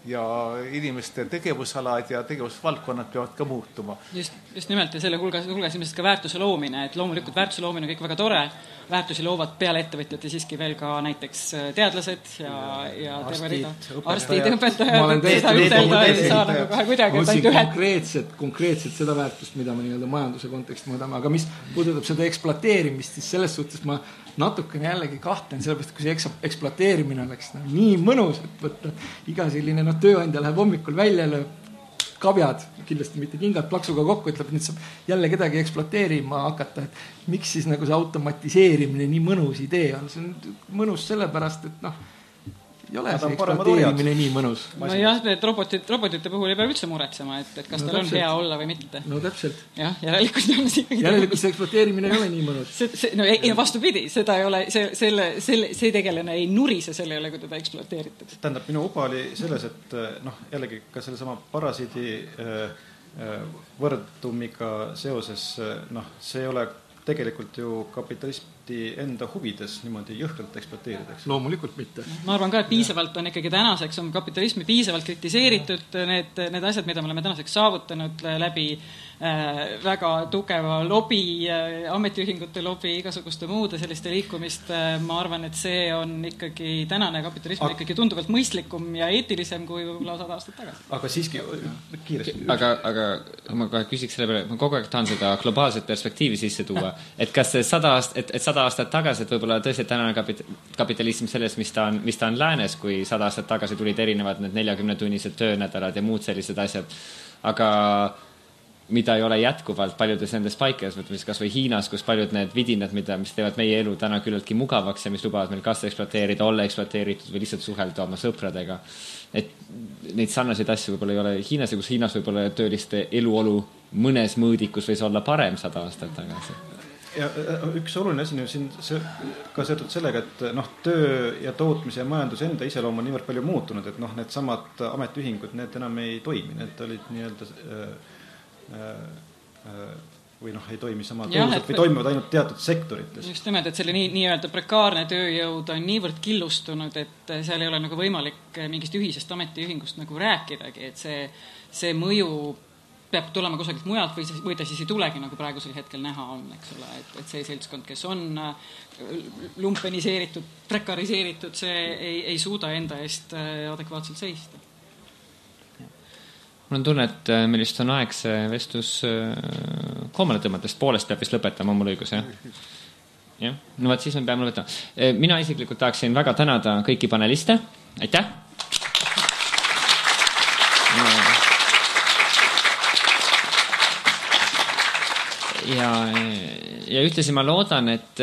ja inimeste tegevusalad ja tegevusvaldkonnad peavad ka muutuma. Just nimelt ja selle hulgas ilmselt ka väärtuse loomine, et loomulikult väärtuse loomine on kõik väga tore, väärtusi loovad peale ettevõtjate siiski veel ka näiteks teadlased ja arstid, õpetajad, seda ütelda ei saa nagu kohe kuidagi. Konkreetselt seda väärtust, mida me majanduse konteksti mõõdame, aga mis puudutab seda ekspluateerimist, siis selles suhtes ma natukene jällegi kahtlen, sellepärast, kui see ekspluateerimine oleks nii mõnus, et võtta iga selline tööandja läheb hommikul välja, lööb kabjad, kindlasti mitte kingad plaksuga kokku, ütleb, nüüd saab jälle kedagi ekspluateerima hakata, et miks siis nagu see automatiseerimine nii mõnus idee on. See on mõnus sellepärast, et ei ole see ekspluateerimine nii mõnus. No jah, et robotite puhul ei pea üldse muretsema, et kas tal on hea olla või mitte. No täpselt. Jah, järelikult see ekspluateerimine ei ole nii mõnus. Vastupidi, seda ei ole, see tegelane ei nurise selle üle, kui teda ekspluateeritakse. Tähendab, minu uba oli selles, et jällegi ka selle sama parasiidi võrdumiga seoses, see ei ole tegelikult ju kapitalisti enda huvides niimoodi jõhkralt ekspluateeritakse. Loomulikult mitte. Ma arvan ka, et piisavalt on ikkagi tänaseks on kapitalismi piisavalt kritiseeritud need asjad, mida me oleme tänaseks saavutanud läbi väga tugeva lobi, ametiühingute lobi, igasuguste muude selliste liikumist. Ma arvan, et see on ikkagi tänane kapitalism ikkagi tunduvalt mõistlikum ja eetilisem kui võib-olla 100 aastat tagasi. Aga siiski kiiresti. Aga ma kohe küsiks selle peale, ma kogu aeg tahan seda globaalset perspektiivi sisse tuua, et kas see 100 aastat tagasi, et võib-olla tõesti tänane kapitalism selles, mis ta on läänes, kui 100 aastat tagasi tulid erinevad need 40-tunnised töönädalad ja muud sellised asjad, aga mida ei ole jätkuvalt paljudes nendes paikades, võtmes kas või Hiinas, kus paljud need vidinad, mis teevad meie elu täna küllaltki mugavaks ja mis lubavad meil kas ekspluateerida, olla ekspluateeritud või lihtsalt suhelda oma sõpradega. Et neid sarnaseid asju võib-olla ei ole Hiinas ja kus Hiinas võib-olla tööliste eluolu mõnes mõõdikus võis olla parem 100 aastat tagasi. Ja üks oluline asi on siin ka seotud sellega, et töö ja tootmise ja majanduse enda iseloom on niivõrd palju muutunud, et need samad ametiühingud, need enam ei toimi, need olid nii-öelda või ei toimi sama tõusalt või toimivad ainult teatud sektorites. Just nimelt, et selle nii-öelda prekaarne tööjõud on niivõrd killustunud, et seal ei ole nagu võimalik mingist ühisest ametiühingust nagu rääkidagi, et see mõju peab tulema kusagilt mujalt või ta siis ei tulegi, nagu praegusel hetkel näha on, eks ole, et see seltskond, kes on lumpeniseeritud, prekariseeritud, see ei suuda enda eest adekvaatselt seista. Mul on tunne, et meil just on aeg see vestlus koomale tõmmatest, poolest peab vist lõpetama, mul õigus, jah? Jah, no vaat siis me peame lõpetama. Mina isiklikult tahaksin väga tänada kõiki paneliste. Aitäh! ja ühtlasi ma loodan, et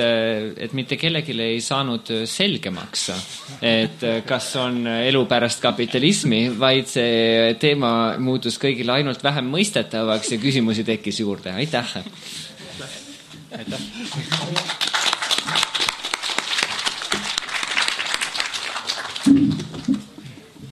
mitte kellelegi ei saanud selgemaks, et kas on elu pärast kapitalismi, vaid see teema muutus kõigile ainult vähem mõistetavaks ja küsimusi tekkis juurde. Aitäh! Aitäh!